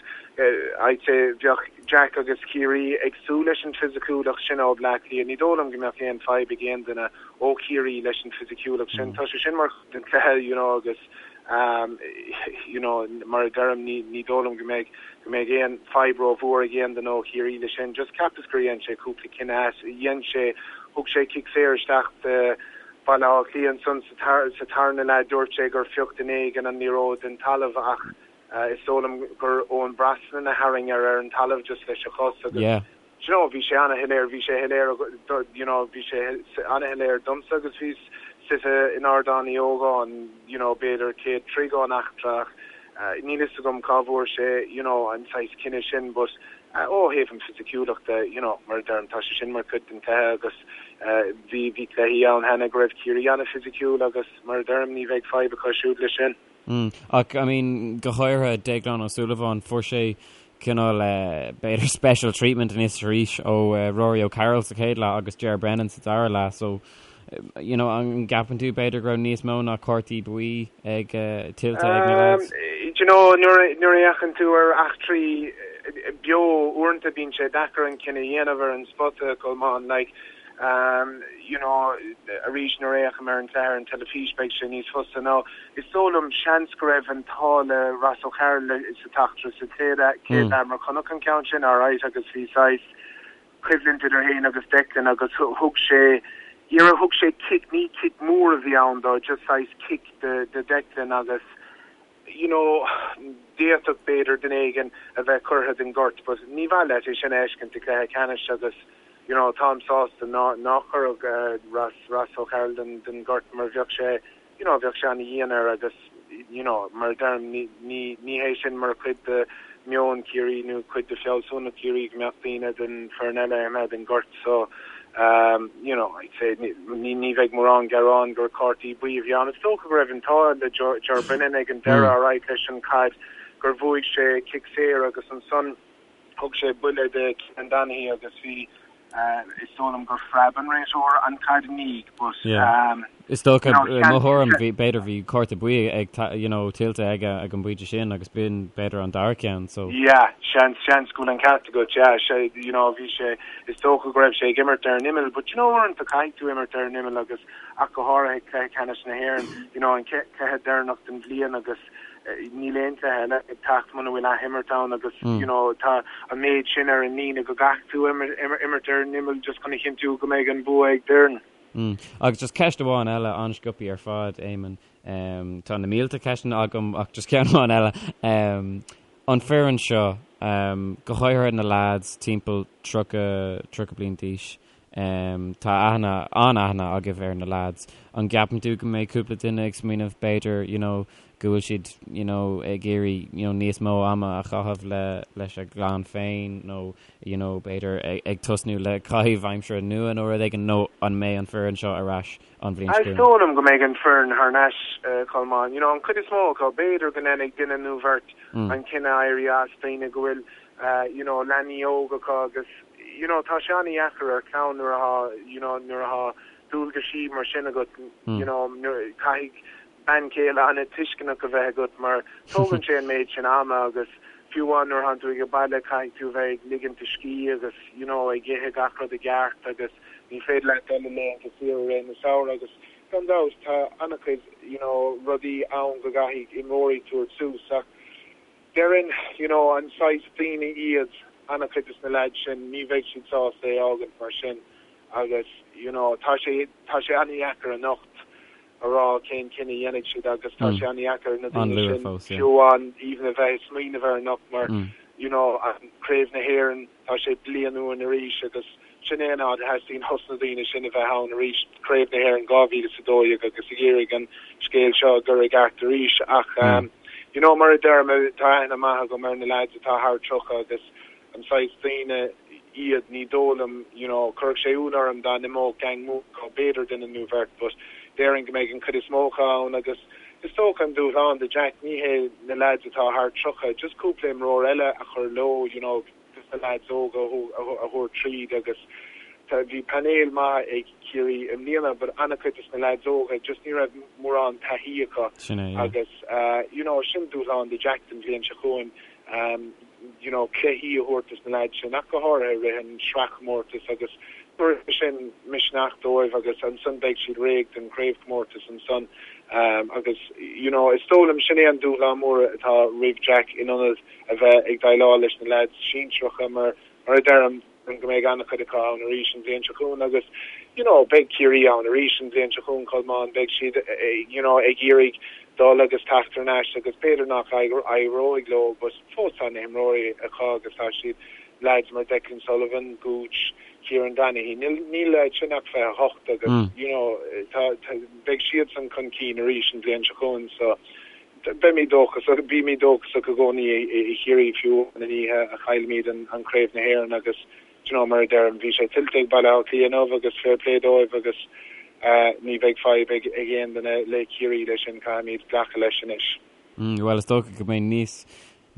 I'd say bheadh Jack agus Ciarraí ag súil leis an fisiciúlacht sin ó Bleá Cliath. Ní dóigh liom go mbeadh aon fadhb ag aon duine ó Chiarraí leis an fisiciúlacht sin. Tá sé sin mar chuid den chluiche, you know, agus you know, mar a deirim, ní, ní dóigh liom go mbeidh, go mbeidh aon fadhb rómhór ag aon duine ó Chiarraí leis sin. Just cheapas gur dhein sé cúpla cinneadh, dhein sé, Thug sé cic saor isteach do Bhaile Átha Cliath ansan sa tarna leath. Dúirt sé gur phioc duine éigin an liathróid den talamh ach is dóigh liom gur Eoin Brosnan a tharraing ar ar an talamh just leis a chos agus do you know bhí sé ana-shoiléir, bhí sé shoiléir you know bhí sé ana-shoiléir domsa agus bhíos suite in Ardán Uí Ógáin you know b'fhéidir 100 troigh ón eachtra ach níl fhios agam cá bhfuair sé you know an saghas cinneadh sin but Ó thaobh an fisiciúlachta, you know, mar a deirim, tá sé sin mar chuid den chluiche agus bhí, bhí cluichí ann cheana go raibh Ciarraí an-fhisiciúil agus mar a deirim, ní bheidh fadhb acu siúd leis sin. Mm. Ach, I mean, go háirithe Déaglán Ó Súilleabháin, fuair sé cineál, b'fhéidir special treatment anois arís ó Rory O'Carroll sa chéad leath agus Ger Brennan sa dara leath, so you know, an gceapann tú b'fhéidir go raibh níos mó ná cártaí buí ag tuillte ag na lads? Do you know, nuair a fhéachann tú ar eachtraí beo, uaireanta bíonn sé deacair an cinneadh a dhéanamh ar an spota, Colmán, like, you know, arís nuair a fhéachaim ar an cluiche ar an teilifís beidh sé níos fusa. Now, is dóigh liom seans go raibh an t-ádh le Ross O'Carroll sa t-eachtra sa chéad leath mar chonac an ceann sin alright agus bhí saghas, coimhlint idir féin agus Declan agus thug sé iarraidh, thug sé cic, ní cic mór a bhí ann dó, just saghas cic do Declan agus you know d'fhéadfadh b'fhéidir duine éigin a bheith curtha den ghort but ní mhaith leat é sin a fheiscint i gcluiche ceannais agus you know táim sásta ná nár cuireadh Ross Ross O'Carroll den den ghort mar bheadh sé you know bheadh sé ana-dhian air agus you know mar a deirim ní ní ní hé sin mar chuid de meon Chiarraí nó cuid de fealsúnacht Chiarraí go mbeadh daoine den foireann eile imithe den ghort so um you know I'd say ní ní ní bheidh mórán gearán gur cártaí buí a bhí ann. Is dócha go raibh an t-ádh le Ger Brennan ag an deireadh alright leis an caid gur bhuaigh sé cic saor agus ansan Thug sé buille do Kieran Donaghy agus bhí, is dóigh liom gur phreab an réiteoir an chaid i ndiaidh but Yeah. Is dócha, mo thuairim, bhí, b'fhéidir bhí cárta buí ag, you know, tuillte aige ag an bpointe sin agus b'in b'fhéidir an dara ceann, so. Yeah, seans, seans go bhfuil an ceart agat, yeah, sé, you know, bhí sé, is dócha go raibh sé ag imirt ar an imeall but you know uaireanta caithfidh tú imirt ar an imeall agus ach go háirithe cluiche ceannais na hÉireann, you know, an cluiche deireanach den bhliain agus níl aon chluiche eile ag teacht muna bhfuil athimirt ann agus you know tá an méid sin ar an líne go gcaithfidh tú imirt ar an imeall just chun a chinntiú go mbeidh an bua ag d'fhoireann. Agus just ceist amháin eile, an-sciobtha ar fad, Éamonn. Tá na mílte ceisteanna agam ach just ceann amháin eile. An foireann seo, go háirithe na lads timpeall 30, 30 bliain d'aois, Tá aithne, an-aithne agaibh ar na lads. An gceapann tú go mbeidh cúpla duine ag smaoineamh b'fhéidir, you know, go bhfuil siad, you know, ag iarraidh, you know, níos mó ama a chaitheamh le, leis a gclann féin nó, you know, b'fhéidir ag tosnú le caitheamh aimsire nua nó rud éigin nó an mbeidh an foireann seo ar ais an bhliain seo Is dóigh liom go mbeidh an foireann thar n-ais, Colmán. You know, an chuid is mó acu, b'fhéidir go ndéanfaidh duine nó bheirt an cinneadh éirí as, daoine go bhfuil, you know, leanaí óga acu agus, you know, tá sé an-dheacair ar chlann nuair atá, you know, nuair atá dualgaisí mar sin agat, you know, nuair, caithfidh bean chéile an-tuisceanach a bheith agat mar tógann sé an méid sin ama agus fiú amháin nuair atánn tú ag baile caithfidh tú a bheith ag ligint do scíth agus, you know, ag ithe gach rud i gceart agus ní féidir leat dul i laethanta saoire i rith na samhradh agus gan dabht tá an-chuid, you know, rudaí ann go gcaithfidh imreoirí tabhairt suas ach Déarfainn, you know, an saghas daoine iad an-chuid des na leaids sin, ní bheidh siad sásta é fhágaint mar sin agus, you know, tá sé, tá sé an-dheacair anocht a rá cén cinneadh a dhéanfaidh siad agus tá sé an-dheacair na daoine sin fiú amháin even a bheith ag smaoineamh air anocht mar, you know, an Craobh na hÉireann, Tá sé bliain uainn arís agus sin é an áit a theastaíonn ós na daoine sin a bheith ann arís, Craobh na hÉireann 2012 agus ag iarraidh an scéal seo a chur i gceart arís. Ach you know mar a deirim, tá aithne maith agam ar na lads atá thar 30 agus an saghas daoine iad, ní dóigh liom, you know, chuirfeadh sé ionadh orm dá n-imeodh gang mór acu, b'fhéidir duine nó bheirt but déarfainn go mbeidh an chuid is mó acu ann agus is dócha an dúshlán do Jack, ní hé na lads atá thar 30, just cúpla imreoir eile a chur leo, you know, just na lads óga a thabhairt tríd agus bhí painéal maith ag Ciarraí i mbliana but an-chuid des na lads óga just ní raibh mórán taithí acu agus you know sin dúshlán do Jack don bhliain seo chugainn you know cluichí a thabhairt dos na lads sin ach go háirithe i rith an sraithchomórtais agus tabharfaidh sin misneach dóibh agus ansan beidh siad réidh don chraobhchomórtas ansan agus you know is dóigh liom sin é an dúshlán mór atá roimh Jack in ionad a bheith ag déileáil leis na leaids sinsearacha mar mar a deirim go mbeidh an-chuid acu ann arís an bhliain seo chugainn agus you know beidh Ciarraí ann arís an bhliain seo chugainn Colmán beidh siad you know ag iarraidh dul agus teacht thar n-ais agus b'fhéidir nach éireoidh leo but fós tá na himreoirí acu agus tá siad leaids mar Declan Sullivan, Gooch, Kieran Donaghy níl níl leaids sin ach 28 agus you know tá tá beidh siadsan chun cinn arís an bhliain seo chugainn so Beimid dóchasach, bímid dóchasach i gcónaí i Chiarraí fiú an oíche a chaillfimid an Craobh na hÉireann agus do you know mar a deirim bhí sé tuillte ag Baile Átha Cliath inniu agus fair play dóibh agus ní bheidh fadhb ag aon duine le Ciarraí leis sin, caithfimid glacadh leis anois. Bhuel is dócha go mbeidh níos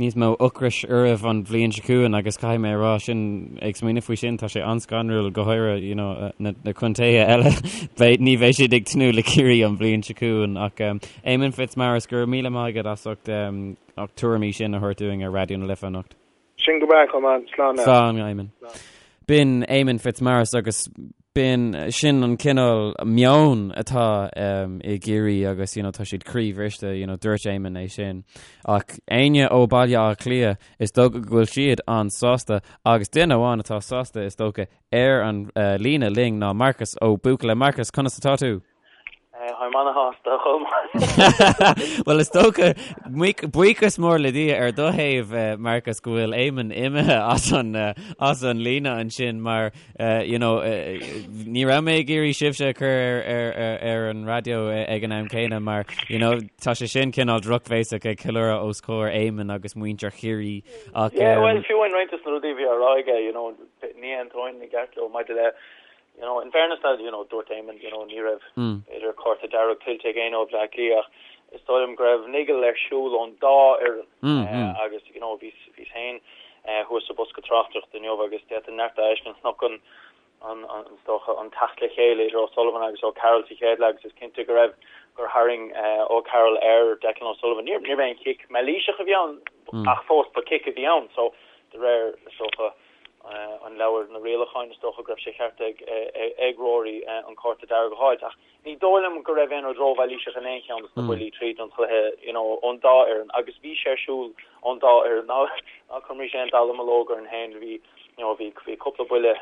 níos mó ocrais oraibh an bhliain seo chugainn agus caithfidh mé a rá sin, ag smaoineamh faoi sin, tá sé an-scanrúil, go háirithe you know na na contaetha eile, beidh, ní bheidh siad ag tnúth le Ciarraí an bhliain seo chugainn ach Éamonn Fitzmaurice, go raibh míle maith agat as ucht na tuairimí sin a thabhairt dúinn ar Raidió na Life anocht. Sin go breá, Colmán. Slán leat. Slán, Éamonn. B'in Éamonn Fitzmaurice agus b'in sin an cineál meon atá i gCiarraí agus you know, tá siad croíbhriste, you know, dúirt Éamonn é sin. Ach éinne ó Baile Átha Cliath, is dócha go bhfuil siad an-sásta agus duine amháin atá sásta is dócha ar an uh, líne linn ná Marcas Ó Buachalla. Marcas, conas atá tú? Táim ana-shásta, a Cholmáin. Bhuel, is dócha, buíochas mór le Dia ar do thaobh, Marcus, go bhfuil Éamonn imithe as an, as an líne ansin mar, you know, ní raibh mé ag iarraidh sibhse a chur ar, ar, ar, ar an raidió ag an am céanna mar, you know, tá sé sin cineál drochbhéasach ag ceiliúradh os comhair Éamonn agus muintir Chiarraí ach, Yeah, well, fiú amháin roinnt de na rudaí a bhí á rá aige, you know, ní aontóinn i gceart leo maidir le You know, in fairness now, you know, dúirt Éamonn, you know, ní raibh b'fhéidir cárta dearg tuillte ag éinne ó Bhleá Cliath ach is dóigh liom go raibh niggle ar siúl ón dá fhoireann agus, you know, bhíos, bhíos féin thuas sa bosca tráchtaireachta inniu agus d'fhéadfainn neart a fheiscint. Chonac an, an, an, is dócha, an teacht le chéile idir O'Sullivan agus O'Carroll sa chéad leath agus is cinnte go raibh, gur tharraing O'Carroll ar Declan O'Sullivan. Níor, níorbh aon chic mailíseach a bhí ann ach fós ba chic a bhí ann so de réir, is dócha, an leabhar na rialacháin, is dócha go raibh sé ceart ag Rory an cárta dearg a fháilt. Ach ní dóigh liom go raibh aon rud rómhailíseach in aon cheann de na buillí tríd an chluiche you know ón dá fhoireann agus bhí sé ar siúl ón dá fhoireann. Ná ná cuirimis aon dallamullóg orainn féin, bhí you know bhí bhí cúpla buille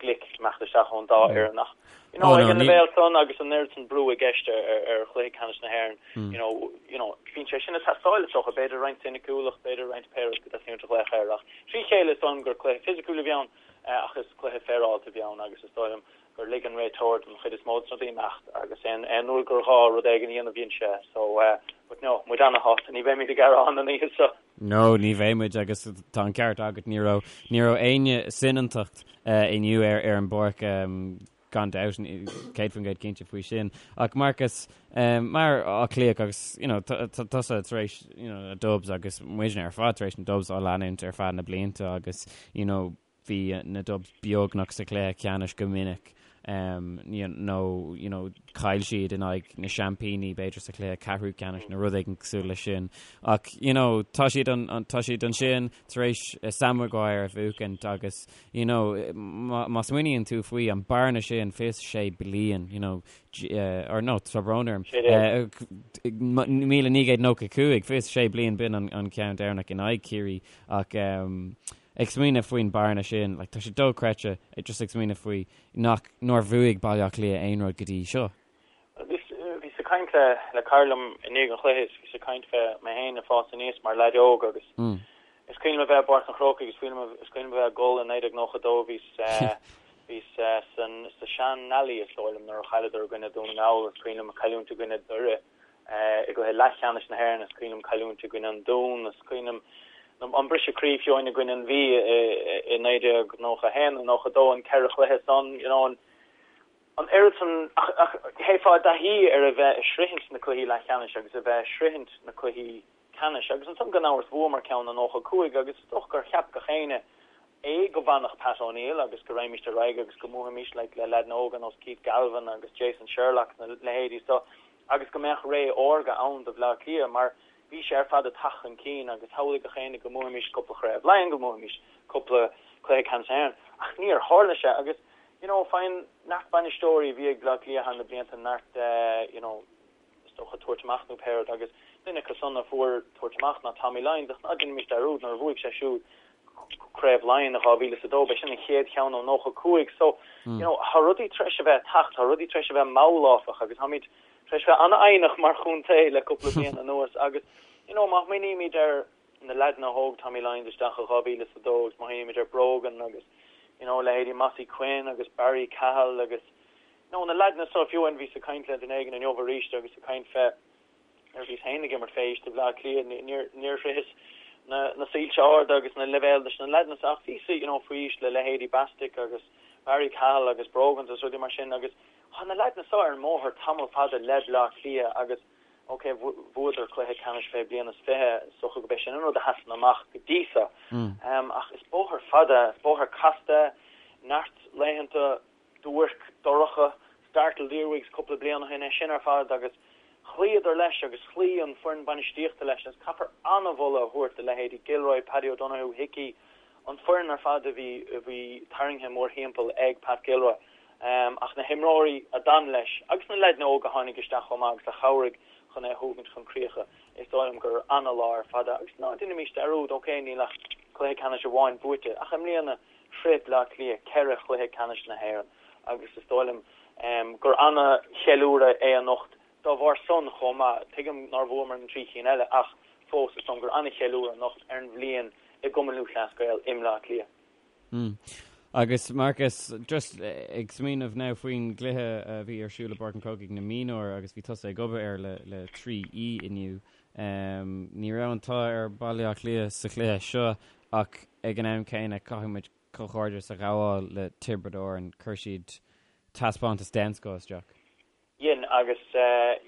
glic ag imeacht isteach ón dá fhoireann ach you know ag an leibhéal san agus an oiread san brú i gceist ar ar chluiche ceannais na hÉireann you know you know bíonn sé sin ag teastáil is dócha, b'fhéidir roinnt soiniciúlacht, b'fhéidir roinnt pé rud go dteastaíonn uait a ghlaoch air ach Trí chéile is dóigh liom gur cluiche fisiciúil a bhí ann. Ach is cluiche féaráilte a bhí ann agus is dóigh liom gur lig an réiteoir don chuid is mó de na rudaí imeacht agus aon aon uair gur ghá rud éigin a dhéanamh dhein sé. So, but no, muid ana-shásta, ní bheimid ag gearán an oíche seo. No, ní bheidh muid agus tá an ceart agat, ní raibh, ní raibh éinne soineantacht inniu ar ar an bpáirc gan dabht, 100% cinnte faoi sin. Ach Marcus, mar Áth Cliathach agus you know, tusa tar éis you know, na Dubs agus muidne ar fad tar éis na Dubs á leanúint ar feadh na blianta agus you know, bhí na Dubs beagnach sa chluiche ceannais go minic nó you know, chaill siad in aghaidh na seaimpíní b'fhéidir sa chluiche ceathrú ceannais nó rud éigin cosúil leis sin. Ach you know, tá siad an, tá siad ansin tar éis Sam Maguire a bhuachaint agus you know, má smaoiníonn tú faoi an bearna sin 26 bliain, you know, or no, tá brón orm, 1995, 26 bliain b'in an ceann deireanach in aghaidh Ciarraí ach ag smaoineamh faoin bearna sin, like, tá sé dochreidte just ag smaoineamh faoi nach, nár bhuaigh Baile Átha Cliath aon rud go dtí seo. Bhíos ag caint le le cara liom i ndiaidh an chluiche is bhíos ag caint fé mé féin ag fás aníos mar leaid óg agus is cuimhin liom a bheith i bPáirc an Chrócaigh is cuimhin liom is cuimhin liom a bheith ag gol i 1992 bhíos bhíos san sa sean Nally is dóigh liom nuair a chailleadar i gcoinne Dún na nGall is cuimhin liom cailliúint i gcoinne Doire i gcluiche leathcheannais na hÉireann is cuimhin liom cailliúint i gcoinne an Dún is cuimhin liom an briseadh croí fiú i gcoinne an Mhí i 1991 nó 92 an ceithre chluiche san you know an An oiread san, ach théifeá i dtaithí ar a bheith ag sroichint na cluichí leathcheannais agus a bheith ag sroichint na cluichí ceannais. Agus ansan gan amhras bhuamar ceann i 95 agus is dócha gur cheap gach éinne é go bhfanfadh Pat O'Neill agus go raghaimíst ar aghaidh agus go mbuafaimíst like le leaideanna óga nós Keith Galvin agus Jason Sherlock na leithéidí so agus go mbeadh ré órga ann do Bhleá Cliath mar bhí sé ar fad ag teacht chun cinn agus shamhlaigh gach éinne go mbuafaimíst cúpla Chraobh Laighean, go mbuafaimíst cúpla cluiche ceannais na hÉireann ach níor tharla sé agus you know, faigheann neart bainisteoirí a bhí ag Bleá Cliath thar na blianta neart you know, is dócha tabhairt amach nó pé rud agus duine acu san a fuair tabhairt amach ná Tommy Lyons ach ná déanaimis dearúd nuair a bhuaigh sé siúd Craobh Laighean i 2002 b'é sin an chéad cheann ó 95 so you know, tá rudaí tar éis a bheith ag teacht, tá rudaí tar éis a bheith mall áfach agus táimid tar éis bheith an-fhoighneach mar chontae le cúpla bliain anuas agus you know, má smaoinímid ar na leaideanna a thóg Tommy Lyons isteach i 2002 agus má smaoinímid ar Brogan agus you know leithéidí Mossy Quinn agus Barry Cahill agus you know na leaideanna so fiú amháin bhíos ag caint le duine éigin inniu arís agus ag caint fé nuair a bhíos féin ag imirt fé aois do Bhleá Cliath níor níor shroicheas na na soilse arda agus na leibhéil leis na leaideanna so ach bhíos you know faoi aois le leithéidí Bastick agus Barry Cahill agus Brogans agus rudaí mar sin agus tá na leaideanna so ar an mbóthar tamall fada le Bleá Cliath agus Ok, bhuadar cluiche ceannais fé bliain is 20, is dócha gurb é sin an rud a sheasann amach go dtí seo. Ach is bóthar fada, is bóthar casta, neart laethanta duairc, dorcha, Startled Earwigs cúpla bliain ó shin, é sin ar fad agus chloíodar leis agus chloígh an foireann bainistíochta leis agus caithfear an-mholadh a thabhairt do leithéidí Gilroy, Paddy O'Donoghue, Hickey, an foireann ar fad a bhí a bhí tarraingthe mórthimpeall ag Pat Gilroy. Ach na himreoirí a d'fhan leis, agus na leaideanna óga a tháinig isteach chomh maith agus a chabhraigh chun é a thógaint chun críocha, is dóigh liom gur ana-lá ar fad é. Agus ná déanaimis dearúd, ok, níl ach cluiche ceannais amháin buaite, ach i mbliana shroich Bleá Cliath ceithre chluiche ceannais na hÉireann agus is dóigh liom gur ana-cheiliúradh é anocht dá bharr san chomh maith. Tuigim nár bhuamar na trí chinn eile ach fós is dóigh liom gur ana-cheiliúradh anocht ar an bhliain i gCumann Lúthchleas Gael i mBleá Cliath. Mm. Agus Marcus, just ag smaoineamh now faoin gcluiche a bhí ar siúl i bPáirc an Chrócaigh na mionúir agus bhí tusa ag obair air le le 3E inniu. Um, ní raibh an t-ádh ar Baile Átha Cliath sa chluiche seo ach ag an am céanna caithfidh muid comhghairdeas a ghabháil le Tiobraid Árann, chuir siad taispeántas den scoth isteach. Dhein, agus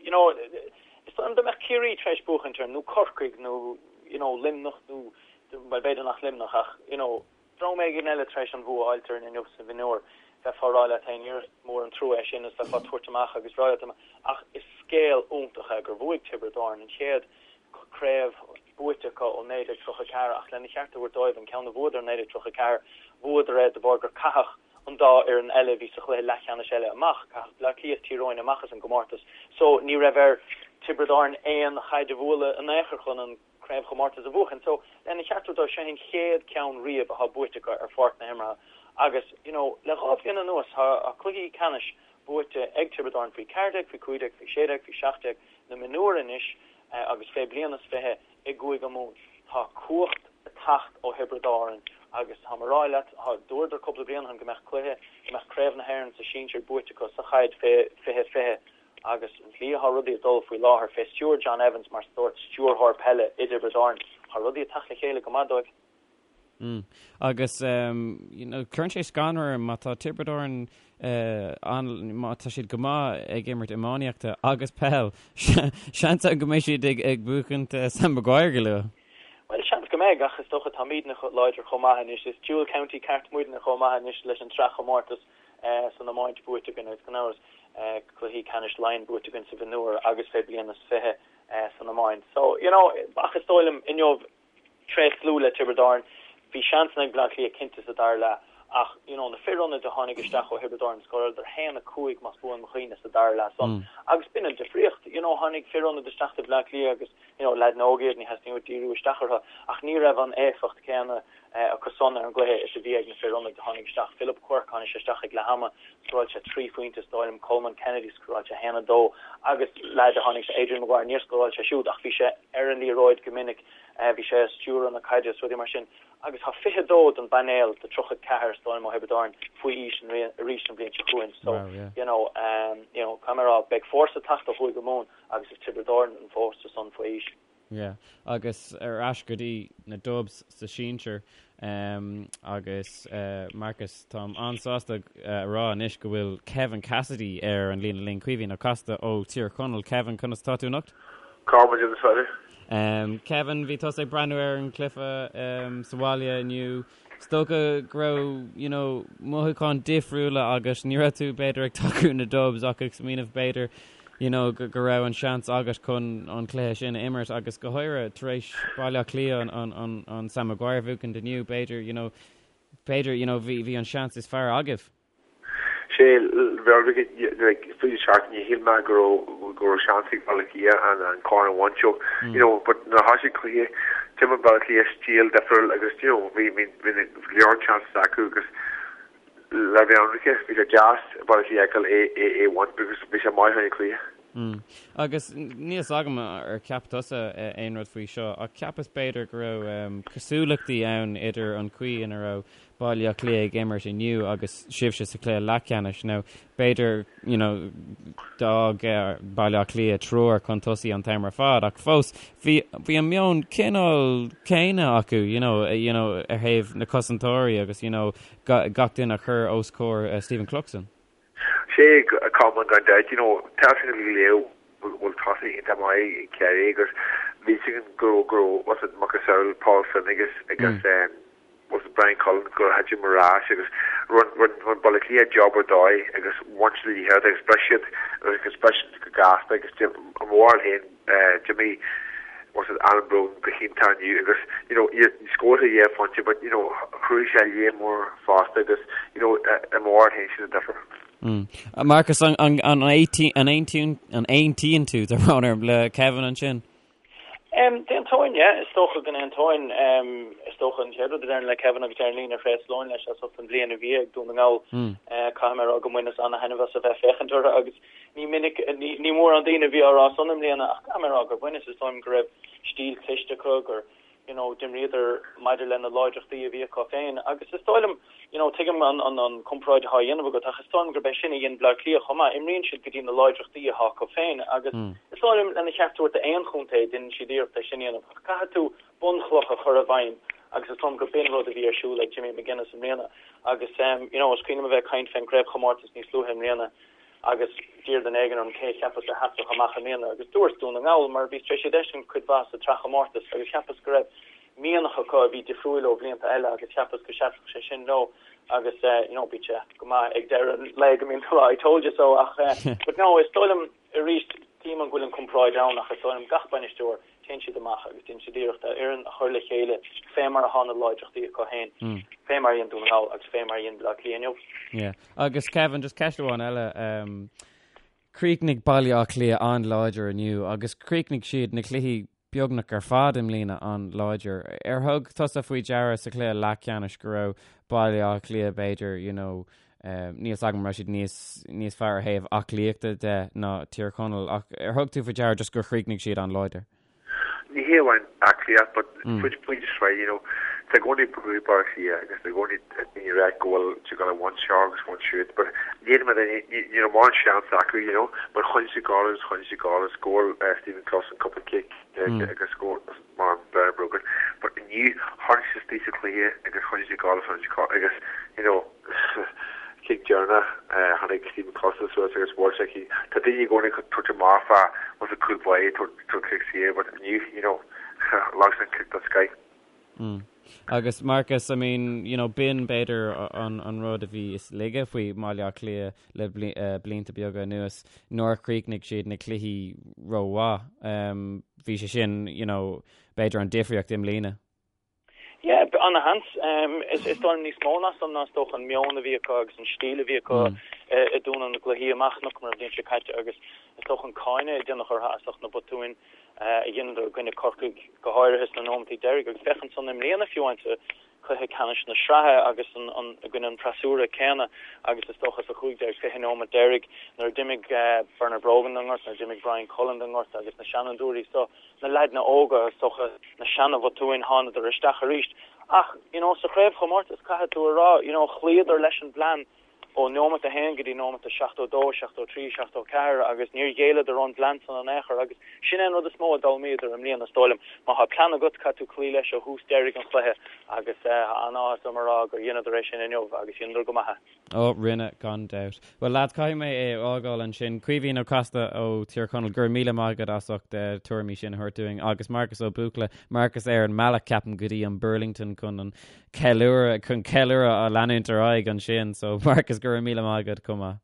you know, is dóigh liom dá mbeadh Ciarraí tar éis buachaint air, nó Corcaigh, nó you know, Luimneach, nó, bhuel b'fhéidir nach Luimneach ach you know, dream éigin eile tar éis an bhua a fháilt orainn inniu sa mhionúr, bheifeá ag rá leat féin, is mór an trua é sin is bheifeá ag tabhairt amach agus rá leat ach is scéal iontach é gur bhuaigh Tiobraid Árann an chéad craobh buaite acu ó 1934 ach lena cheart a thabhairt dóibh, an ceann a bhuadar in 1934, bhuadar é de bharr gur caitheadh an dá fhoireann eile a bhí sa chluiche leathcheannais eile amach, caitheadh Bleá Cliath is Tír Eoghain amach as an gcomórtas so ní raibh ar Tiobraid Árann aon chaid a bhualadh in aon chor chun an craobhchomórtas a bhuachan. So lena cheart a thabhairt dóibh, seo an chéad ceann riamh atá buaite acu ar pháirc na himeartha agus you know le dhá bhliain anuas tá cluichí ceannais buaite ag Tiobraid Árann faoi 14, faoi 15, faoi 16, faoi 17, na mionúir anois agus fé bliain is 20 i gCúige Mumhan. Tá cumhacht ag teacht ó Thiobraid Árann Agus táim a rá leat, thá, dúradar cúpla bliain ó shin go mbeadh cluiche, go mbeadh Craobh na hÉireann sa sinsir buaite acu sa chaid fé 20 20 agus an tslí athá rudaí ag dul faoi láthair fé stiúir John Evans mar sórt stiúrthóir peile i dTiobraid Árann, thá rudaí ag teacht le chéile go maith dóibh. Mm. Agus you know, cuireann sé scanradh orm má tá Tiobraid Árann an, má tá siad go maith ag imirt iománaíochta agus peil, seans ann go mbeidh siad ag, ag buachaint Sam Maguire go luath. Bhuel, seans go mbeidh, ach is dócha táimidne láidir chomh maith anois. Is dual county ceart muidne chomh maith anois leis an tsraithchomórtas san iomáint buaite againn agus gan amhras cluichí ceannais Laighean buaite againn sa mhionúr agus fé bliain is 20 san iomáint. So, you know, ach is dóigh liom inniu tréaslú le Tiobraid Árann. Bhí seansanna ag Bleá Cliath cinnte sa dara leath ach you know na fir ionaid a tháinig isteach ó Thiobraid Árann scóráladar 1, 5 más buan mo chuimhne sa dara leath san agus b'in an difríocht. You know tháinig fir ionaid isteach do Bhleá Cliath agus you know leaideanna óga iad ní theastaíonn uait díriú isteach orthu ach ní raibh an éifeacht céanna acu san ar an gcluiche is a bhí ag na fir ionaid a tháinig isteach. Philip Quirke tháinig sé isteach ag leath ama scóráil sé 3 phointe is dóigh liom, Colman Kennedy scóráil sé 1, 2 agus leaid a tháinig Adrian Maguire níor scóráil sé siúd ach bhí sé ar an liathróid go minic, bhí sé ag stiúradh na caide is rudaí mar sin agus tá 22 den bpainéal de 34 is dóigh liom ó Thiobraid Árann faoi aois arís an bhliain seo chugainn so you know you know caithfidh mé a rá beidh fórsa ag teacht ó Chúige Mumhan agus is Tiobraid Árann an fórsa san faoi aois. Yeah agus ar ais go dtí na Dubs sa sinsir agus Marcus táim an-sásta a rá anois go bhfuil Kevin Cassidy ar an líne linn, Caoimhín Ó Casaide ó Tír Chonaill. Kevin, conas atá tú anocht? Cá bhfuil an fear? Kevin, bhí tusa ag breathnú ar an cluiche sa bhaile inniu. Is dócha go raibh, you know, mothúcháin difriúla agat. Ní raibh tú, b'fhéidir, ag tacú na Dubs ach ag smaoineamh, b'fhéidir, you know, go raibh an seans agat chun an cluiche sin a imirt agus go háirithe tar éis Baile Átha Cliath an, an, an, an Sam Maguire a bhuachaint inniu, b'fhéidir, you know, b'fhéidir, you know, bhí, bhí an seans is fearr agaibh. Sé, like, faoi seachtain, ní shíl mé go raibh, go raibh seans ag Baile Átha Cliath an, an corn a bhaint so, you know, but nuair a thosaigh cluiche, d'imir Baile Átha Cliath stíl difriúil agus, you know, bhí, bhí, bhí go leor chances acu agus le bheith ionraice, bhí sé deas Baile Átha Cliath a fheiceáil é, é, é a bhaint because bhí sé maith an cluiche. Mm. Agus níl fhios agam ar cheap tusa aon rud faoi seo, ach cheapas b'fhéidir go raibh um, cosúlachtaí ann idir an chaoi ina raibh Baile Átha Cliath ag imirt inniu agus sibhse sa chluiche leathcheannais. Now, b'fhéidir, you know, d'fhág Baile Átha Cliath triúr chun tosaigh an t-am ar fad, ach fós, bhí, bhí an meon cineál céanna acu, you know, you know, ar thaobh na cosantóirí agus, you know, gach duine a chur os comhair uh, Stephen Cluxton. Sé, Colmán gan dabht, you know, tá sin go léir bhfuil tosaithe iontach maith ag Ciarraí agus bhí sin go raibh, go raibh, what's it, macasamhail Paul Flynn agus, agus, um, was it Bryan Cullen gur thit ar ais agus rinne rinne Baile Átha Cliath job ar dóigh agus bhain siad an liathróid agus bhris siad agus bhris siad go gasta agus i mo bharúil féin d'imir was it Alan Brogan go hiontach inniu agus you know scóráil sé dhá phointe but you know chruthaigh sé lear mór fosta agus you know i mo bharúil féin sin an difear. Mm. Marcus, an an an an an aontaíonn tú tá brón orm le Kevin ansin? D'aontóinn, yeah. Is dócha go n-aontóinn. Is dócha an chéad rud a déarfainn le Kevin agus déarfainn líne thréaslóinn leis as ucht an bhliain a bhí ag Dún na nGall. Caithfidh mé a rá go mbaineas ana-thaitneamh as a bheith féachaint orthu agus ní minic, ní mórán daoine a bhí á rá san i mbliana ach caithfidh mé a rá gur bhaineas. Is dóigh liom go raibh stíl cliste acu, gur, you know, d'imríodar maidir le na láidreachtaí a bhí acu féin agus is dóigh liom, you know, tuigim an, an, an comparáid atá á dhéanamh agat ach is dóigh liom gurb é sin a dhein Bleá Cliath chomh maith, imríonn siad go dtí na láidreachtaí atá acu féin agus is dóigh liom lena cheart a thabhairt d'aon chontae déanann siad iarracht é sin a dhéanamh ach caithfidh tú bunchloch a chur i bhfeidhm agus is dóigh liom gur b'in rud a bhí ar siúl ag Jimmy McGuinness i mbliana agus um, you know, is cuimhin liom a bheith ag caint fén gcraobhchomórtas níos luaithe i mbliana agus d'iarr duine éigin orm cé a cheapas a sheasfadh amach i mbliana agus dúirt Dún na nGall mar bhí tar éis iad a fheiscint cuid mhaith sa tsraithchomórtas agus cheapas go raibh mianach acu a bhí difriúil ó bhlianta eile agus cheapas go seasfadh sé sin leo agus you know bíonn sé go maith ag deireadh an lae go mbíonn tú I told you so ach but no is dóigh liom arís tuigim an bhfuil an comparáid ann ach is dóigh liom gach bainisteoir téann siad amach agus déanann siad iarracht a fhoireann a chur le chéile fé mar atá na láidreachtaí acu féin, fé mar a dhein Dún na nGall agus fé mar a dhein Baile Átha Cliath inniu. Yeah. Agus Kevin, just ceist amháin eile. Um, chríochnaigh Baile Átha Cliath an-láidir inniu agus chríochnaigh siad na cluichí beagnach ar fad i mbliana an-láidir. Ar thug tusa faoi deara sa chluiche leathcheannais go raibh Baile Átha Cliath b'fhéidir, you know, um, níl a fhios agam raibh siad níos, níos fearr ar thaobh aclaíochta de ná Tír Chonaill, ach ar thug tú faoi deara just gur chríochnaigh siad an-láidir? Ní hé amháin aclaíocht, but mm. faoi faoi sraith, you know, Tá i gcónaí brú ar Baile Átha Cliath agus tá i gcónaí daoine ag ráit go bhfuil siad ag gabháil a bhaint seo agus bhaint siúd but ní ní raibh mórán seans acu you know but choinnigh siad ag gabháil agus choinnigh siad ag gabháil agus scóráil Stephen Cluxton cúpla cic agus scór mar Bernard Brogan but inniu tháinig siad istigh sa chluiche agus choinnigh siad ag gabháil agus choinnigh siad ag gabháil agus you know cic deireanach tháinig Stephen Cluxton suas agus bhuail sé cic tá daoine i gcónaí ag tabhairt amach fá was a cúl báire tabhairt cic saor but inniu you know leag sé an cic den scoith. Mm. Agus Marcus, I mean, you know, b'in b'fhéidir an, an rud a bhí is laige faoi Bhaile Átha Cliath le bli, uh, blianta beaga anuas, nár chríochnaigh siad na cluichí rómhaith. Um, bhí sé sin, you know, b'fhéidir an difríocht i mbliana. Yeah, ana-sheans. Um, is, is dóigh liom níos mó ná san ná is dócha an meon a bhí acu agus an stíl a bhí acu mm. uh, i dtús na gcluichí amach chonaiceamar an bhliain seo caite agus is dócha an cáineadh a déanadh orthu as ucht na botúin a dheineadar i gcoinne Corcaigh, go háirithe sna nóimeataí deiridh, agus féach ansan i mbliana fiú amháin sa chluiche ceannais na sraithe agus i gcoinne an freasúra céanna agus is dócha sa 15, 20 nóimeat deiridh nuair a d'imigh Bernard Brogan den ngort, nuair a d'imigh Bryan Cullen den ngort agus na seanfhondúirí so, na leaideanna óga, is dócha na seana-bhotúin, thánadar isteach arís. Ach, you know, sa chraobhchomórtas, caithfidh tú a rá, you know, chloíodar leis an bplean. ó nóimeat a haon go dtí nóimeat a 72, 73, 74 agus níor ghéilleadar ón bplean san in aon chor agus sin é an rud is mó a d'fhoghlaimíodar i mbliana is dóigh liom. Má thá plean agat caithfidh tú cloí leis ó thús deiridh an chluiche agus tá an-áthas orm a rá gur dheineadar é sin inniu agus dheineadar go maith é. Ó, rinne, gan dabht. Bhuel lads, caithfidh mé é a fhágáil ansin. Caoimhín Ó Casaide ó Thír Chonaill, go raibh míle maith agat as ucht na tuairimí sin a thabhairt dúinn agus Marcus Ó Buachalla, Marcus ar an mbealach ceapaim go dtí an Burlington chun an ceiliúradh chun ceiliúradh a leanúint ar aghaidh ansin so Marcus go raibh míle maith agat chomh maith.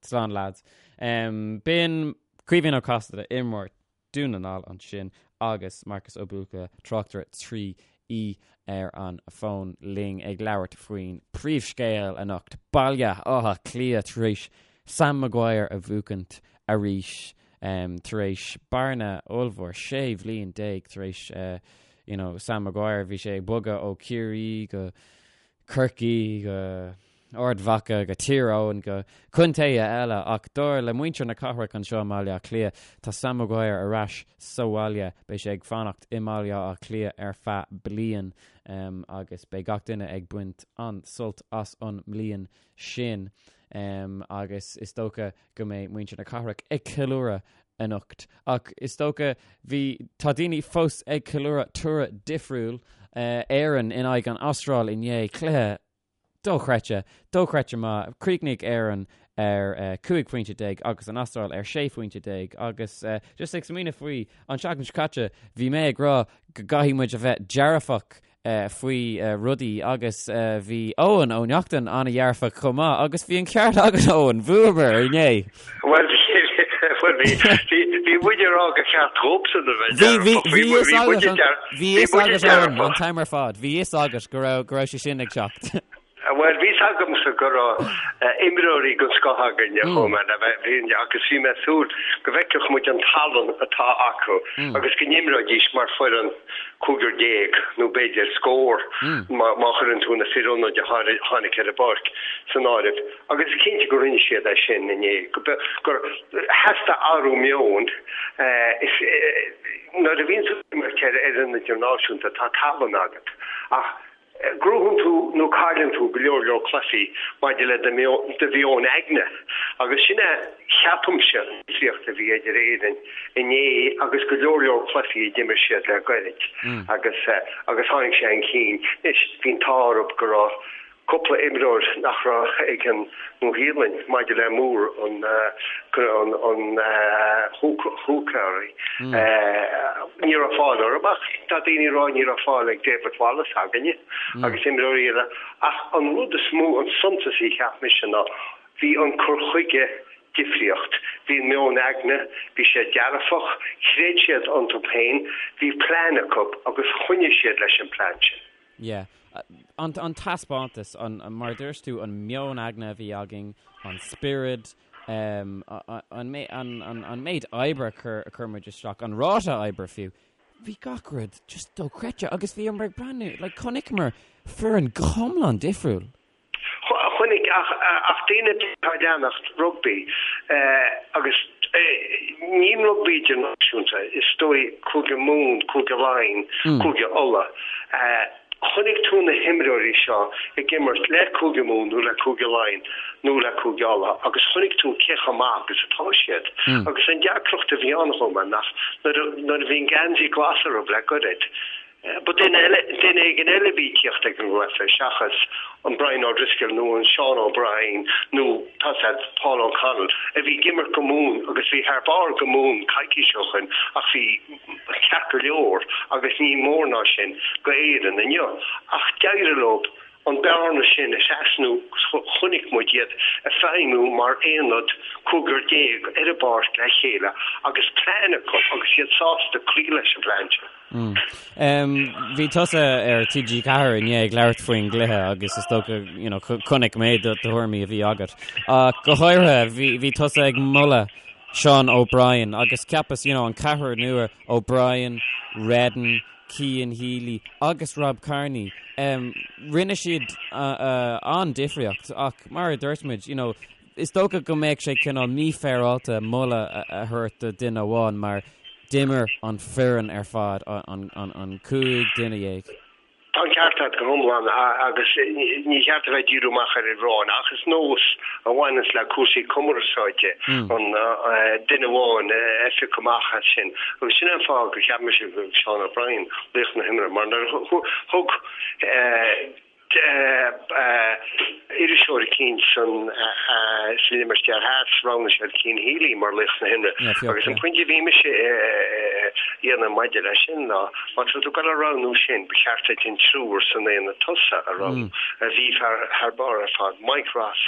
Slán lads. Um, B'in Caoimhín Ó Casaide imreoir Dún na nGall ansin agus Marcus Ó Buachalla tráchtaire 3E ar an bhfón linn ag labhairt faoin príomhscéal anocht Baile Átha Cliath tar éis Sam Maguire a bhuachaint arís um, tar éis bearna ollmhór 16 bhliain tar éis uh, you know, Sam Maguire, bhí sé ag bogadh ó Ciarraí go Corcaigh go Ard Mhacha go Tír Eoghain go contaetha eile ach dar le muintir na cathrach anseo i mBaile Átha Cliath, tá Sam Maguire ar ais sa bhaile. Beidh sé ag fanacht i mBaile Átha Cliath ar feadh bliain um, agus beidh gach duine ag baint an-sult as an mbliain sin um, agus is dócha go mbeidh muintir na cathrach ag ceiliúradh anocht. Ach is dócha, bhí, tá daoine fós ag ceiliúradh toradh difriúil, Éirinn in aghaidh an Astráil inné, cluiche dochreidte, dochreidte maith. Chríochnaigh Éirinn ar 15 phointe agus an Astráil ar 16 phointe agus just ag smaoineamh faoi, an tseachtain seo caite, bhí mé ag rá go gcaithfidh muid a bheith dearfach faoi rudaí agus bhí Eoin Ó Neachtain an-dhearfach chomh maith agus bhí an ceart agat Eoin, bhuamar inné! Bhuel bhí bhí muid ag rá gur cheart dóibhsean a bheith dearfach. Bhí bhí fhios agat Eoin an t-am ar fad, bhí fhios agat go raibh go raibh sé sin ag teacht. Bhuel bhí fhios agamsa go raibh imreoirí den scoth againne chomh maith le bheith agus bhí mé ag súil go bhfeicfeadh muid an tallann atá acu agus go n-imreoidís mar foireann 15 nó b'fhéidir scór má chuireann tú na fir ionaid a tháinig ar an bpáirc san áireamh. Agus is cinnte go rinne siad é sin inné, gur theastaigh athrú meoin. Nuair a bhíonn tú ag imirt ar fhoireann idirnáisiúnta tá tallann agat ach Gnóthaíonn tú nó cailleann tú go leor leor cluichí maidir le do mheon aigne agus sin é, ceapaimse, an difríocht a bhí idir Éirinn inné agus go leor leor cluichí a d'imir siad le gairid agus agus tháinig sé chun cinn. Anois, bhí an t-ádh orthu go raibh cúpla imreoir nach raibh ag an Nua-Shéalainn maidir le Moore an an húcáirí. Ní raibh fáil orthu ach tá daoine ag rá ní raibh fáil ag David Wallace againne agus imreoirí eile ach an rud is mó, an suntasaí cheap mise ná bhí an cur chuige difríocht. Bhí an meon aigne, bhí sé dearfach, chreid siad iontu féin, bhí plean acu agus choinnigh siad leis an plean sin. Yeah. An, an taispeántas, an, mar a dúirt tú, an meon aigne a bhí againn, an spiorad, um, an, an, an, an méid oibre a chur, a chuir muid isteach, an ráta oibre fiú. Bhí gach rud just dochreidte agus bhíomar ag breathnú, like, chonaiceamar foireann go hiomlán difriúil. Chonaic ach, ach daoine atá ag leanacht rugbaí, agus. Ní rugbaí idirnáisiúnta, is dóigh, Cúige Mumhan, Cúige Laighean, Cúige Uladh. Chonaic tú na himreoirí seo ag imirt le Cúige Mumhan nó le Cúige Laighean nó le Cúige Uladh agus chonaic tú cé chomh maith agus atá siad. Agus an deacracht a bhí ann chomh maith nach nuair a bhí an geansaí glas orthu le goirid, Ba duine eile, duine éigin eile a bhí ag tíocht ag an gcluiche seachas an Brian O'Driscoll nó an Seán O'Brien nó, tá 's a'd, Paul O'Connell a bhí ag imirt go Mumhan agus bhí thar barr go Mumhan coicís ó shoin ach bhí ceart go leor agus ní mór ná sin go Éirinn inniu. Ach d'éirigh leo an bearna sin a thrasnú agus chonaic muid iad ag feidhmiú mar aonad 15 ar an bpáirc le chéile agus plean acu agus iad sásta cloí leis an bplean sin. Bhí tusa ar TG4 inné ag labhairt faoin gcluiche agus is dócha you know chonaic mé do thuairimí a bhí agat. Ach go háirithe bhí bhí tusa ag moladh Sean O'Brien agus cheapas you know an ceathrar nua O'Brien, Redden, Cian Healy agus Rob Kearney, rinne siad an-difríocht ach mar a dúirt muid, you know, is dócha go mbeadh sé cineál mífhéaráilte moladh a thabhairt do duine amháin mar d'imir an foireann ar fad, an 15 duine. Tá an ceart agat go hiomlán agus ní cheart a bheith ag díriú amach ar fhear amháin ach is nós a bhaineanns le cúrsaí cumarsáide an duine amháin a phiocadh amach as sin agus sin é an fáth gur cheap mise go raibh Seán O'Brien laoch na himeartha mar nuair a thug iriseoir eicínt san sa Limistéar Theas, roghnaigh siad Cian Healy mar laoch na himeartha agus an pointe a bhí mise a dhéanamh maidir leis sin ná má tá tú ag dul a roghnú sin, ba cheart duit an triúr san aonad tosaigh a roghnú a bhí thar barr ar fad, Mike Ross.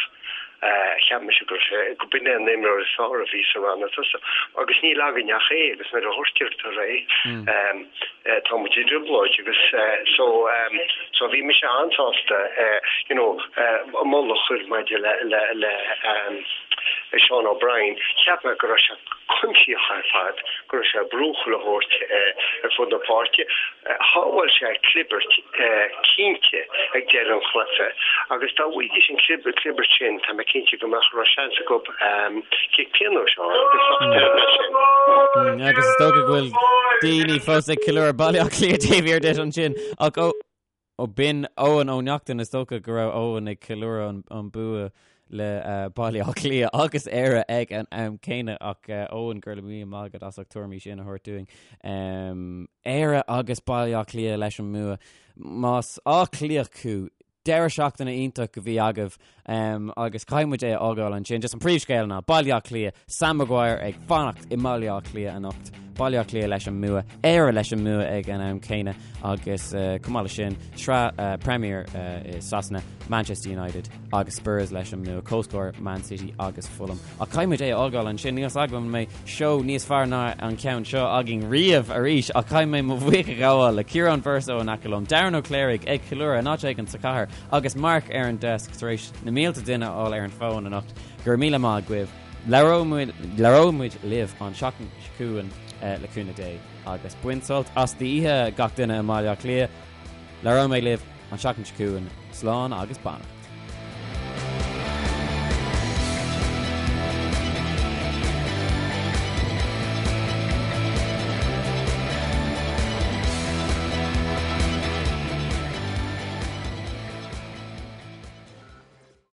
Cheap mise go raibh sé, go b'in é an imreoir is fearr a bhí sa rannóg tosaigh agus níl againn ach é agus nuair a ghortaítear é tá muid i dtrioblóid agus so so bhí mise an-sásta you know moladh a chur maidir le le le Seán O'Brien. Cheap mé go raibh sé cuimsitheach ar fad, go raibh sé ag brú chuile shórt ar fud na páirce. Shábháil sé clibirt cinnte ag deireadh an chluiche agus dá bhfaighidís an clibirt sin, tá mé cinnte go mbeadh raibh seans acu cic pionóis a fháil agus bheadh deireadh leis sin. Agus is dócha go bhfuil daoine fós ag ceiliúradh Baile Átha Cliath taobh thiar duit ansin ach ó Ó b'in Eoin Ó Neachtain, is dócha go raibh Eoin ag ceiliúradh an bua le Baile Átha Cliath agus Éire ag an am céanna ach Eoin, go raibh míle maith agat as ucht tuairimí sin a thabhairt dúinn. Éire agus Baile Átha Cliath leis an mbua. Más Áth Cliathach thú, deireadh seachtaine iontach a bhí agaibh agus caithfidh muid é a fhágáil ansin. Just an príomhscéal ná Baile Átha Cliath, Sam Maguire ag fanacht i mBaile Átha Cliath anocht. Baile Átha Cliath leis an mbua, Éire leis an mbua ag an am céanna agus chomh maith leis sin, sraith Premier i Sasana, Manchester United agus Spurs leis an mbua, comhscór Man City agus Fulham. Ach caithfidh muid é a fhágáil ansin, níl 's agam an mbeidh seó níos fearr ná an ceann seo againn riamh arís ach caithfidh mé mo bhuíochas a ghabháil le Ciarán Verso in aice liom, Darren Ó Cléirigh ag ceiliúradh in áit éigin sa chathair agus Mark ar an desk tar éis na mílte duine a fháil ar an bhfón anocht. Go raibh míle maith agaibh. Labhróidh muid libh an seachtain seo chugainn le cúnamh Dé agus bain sult as d'oíche gach duine i mBaile Átha Cliath. Labhróidh mé libh an seachtain seo chugainn. Slán agus beannacht.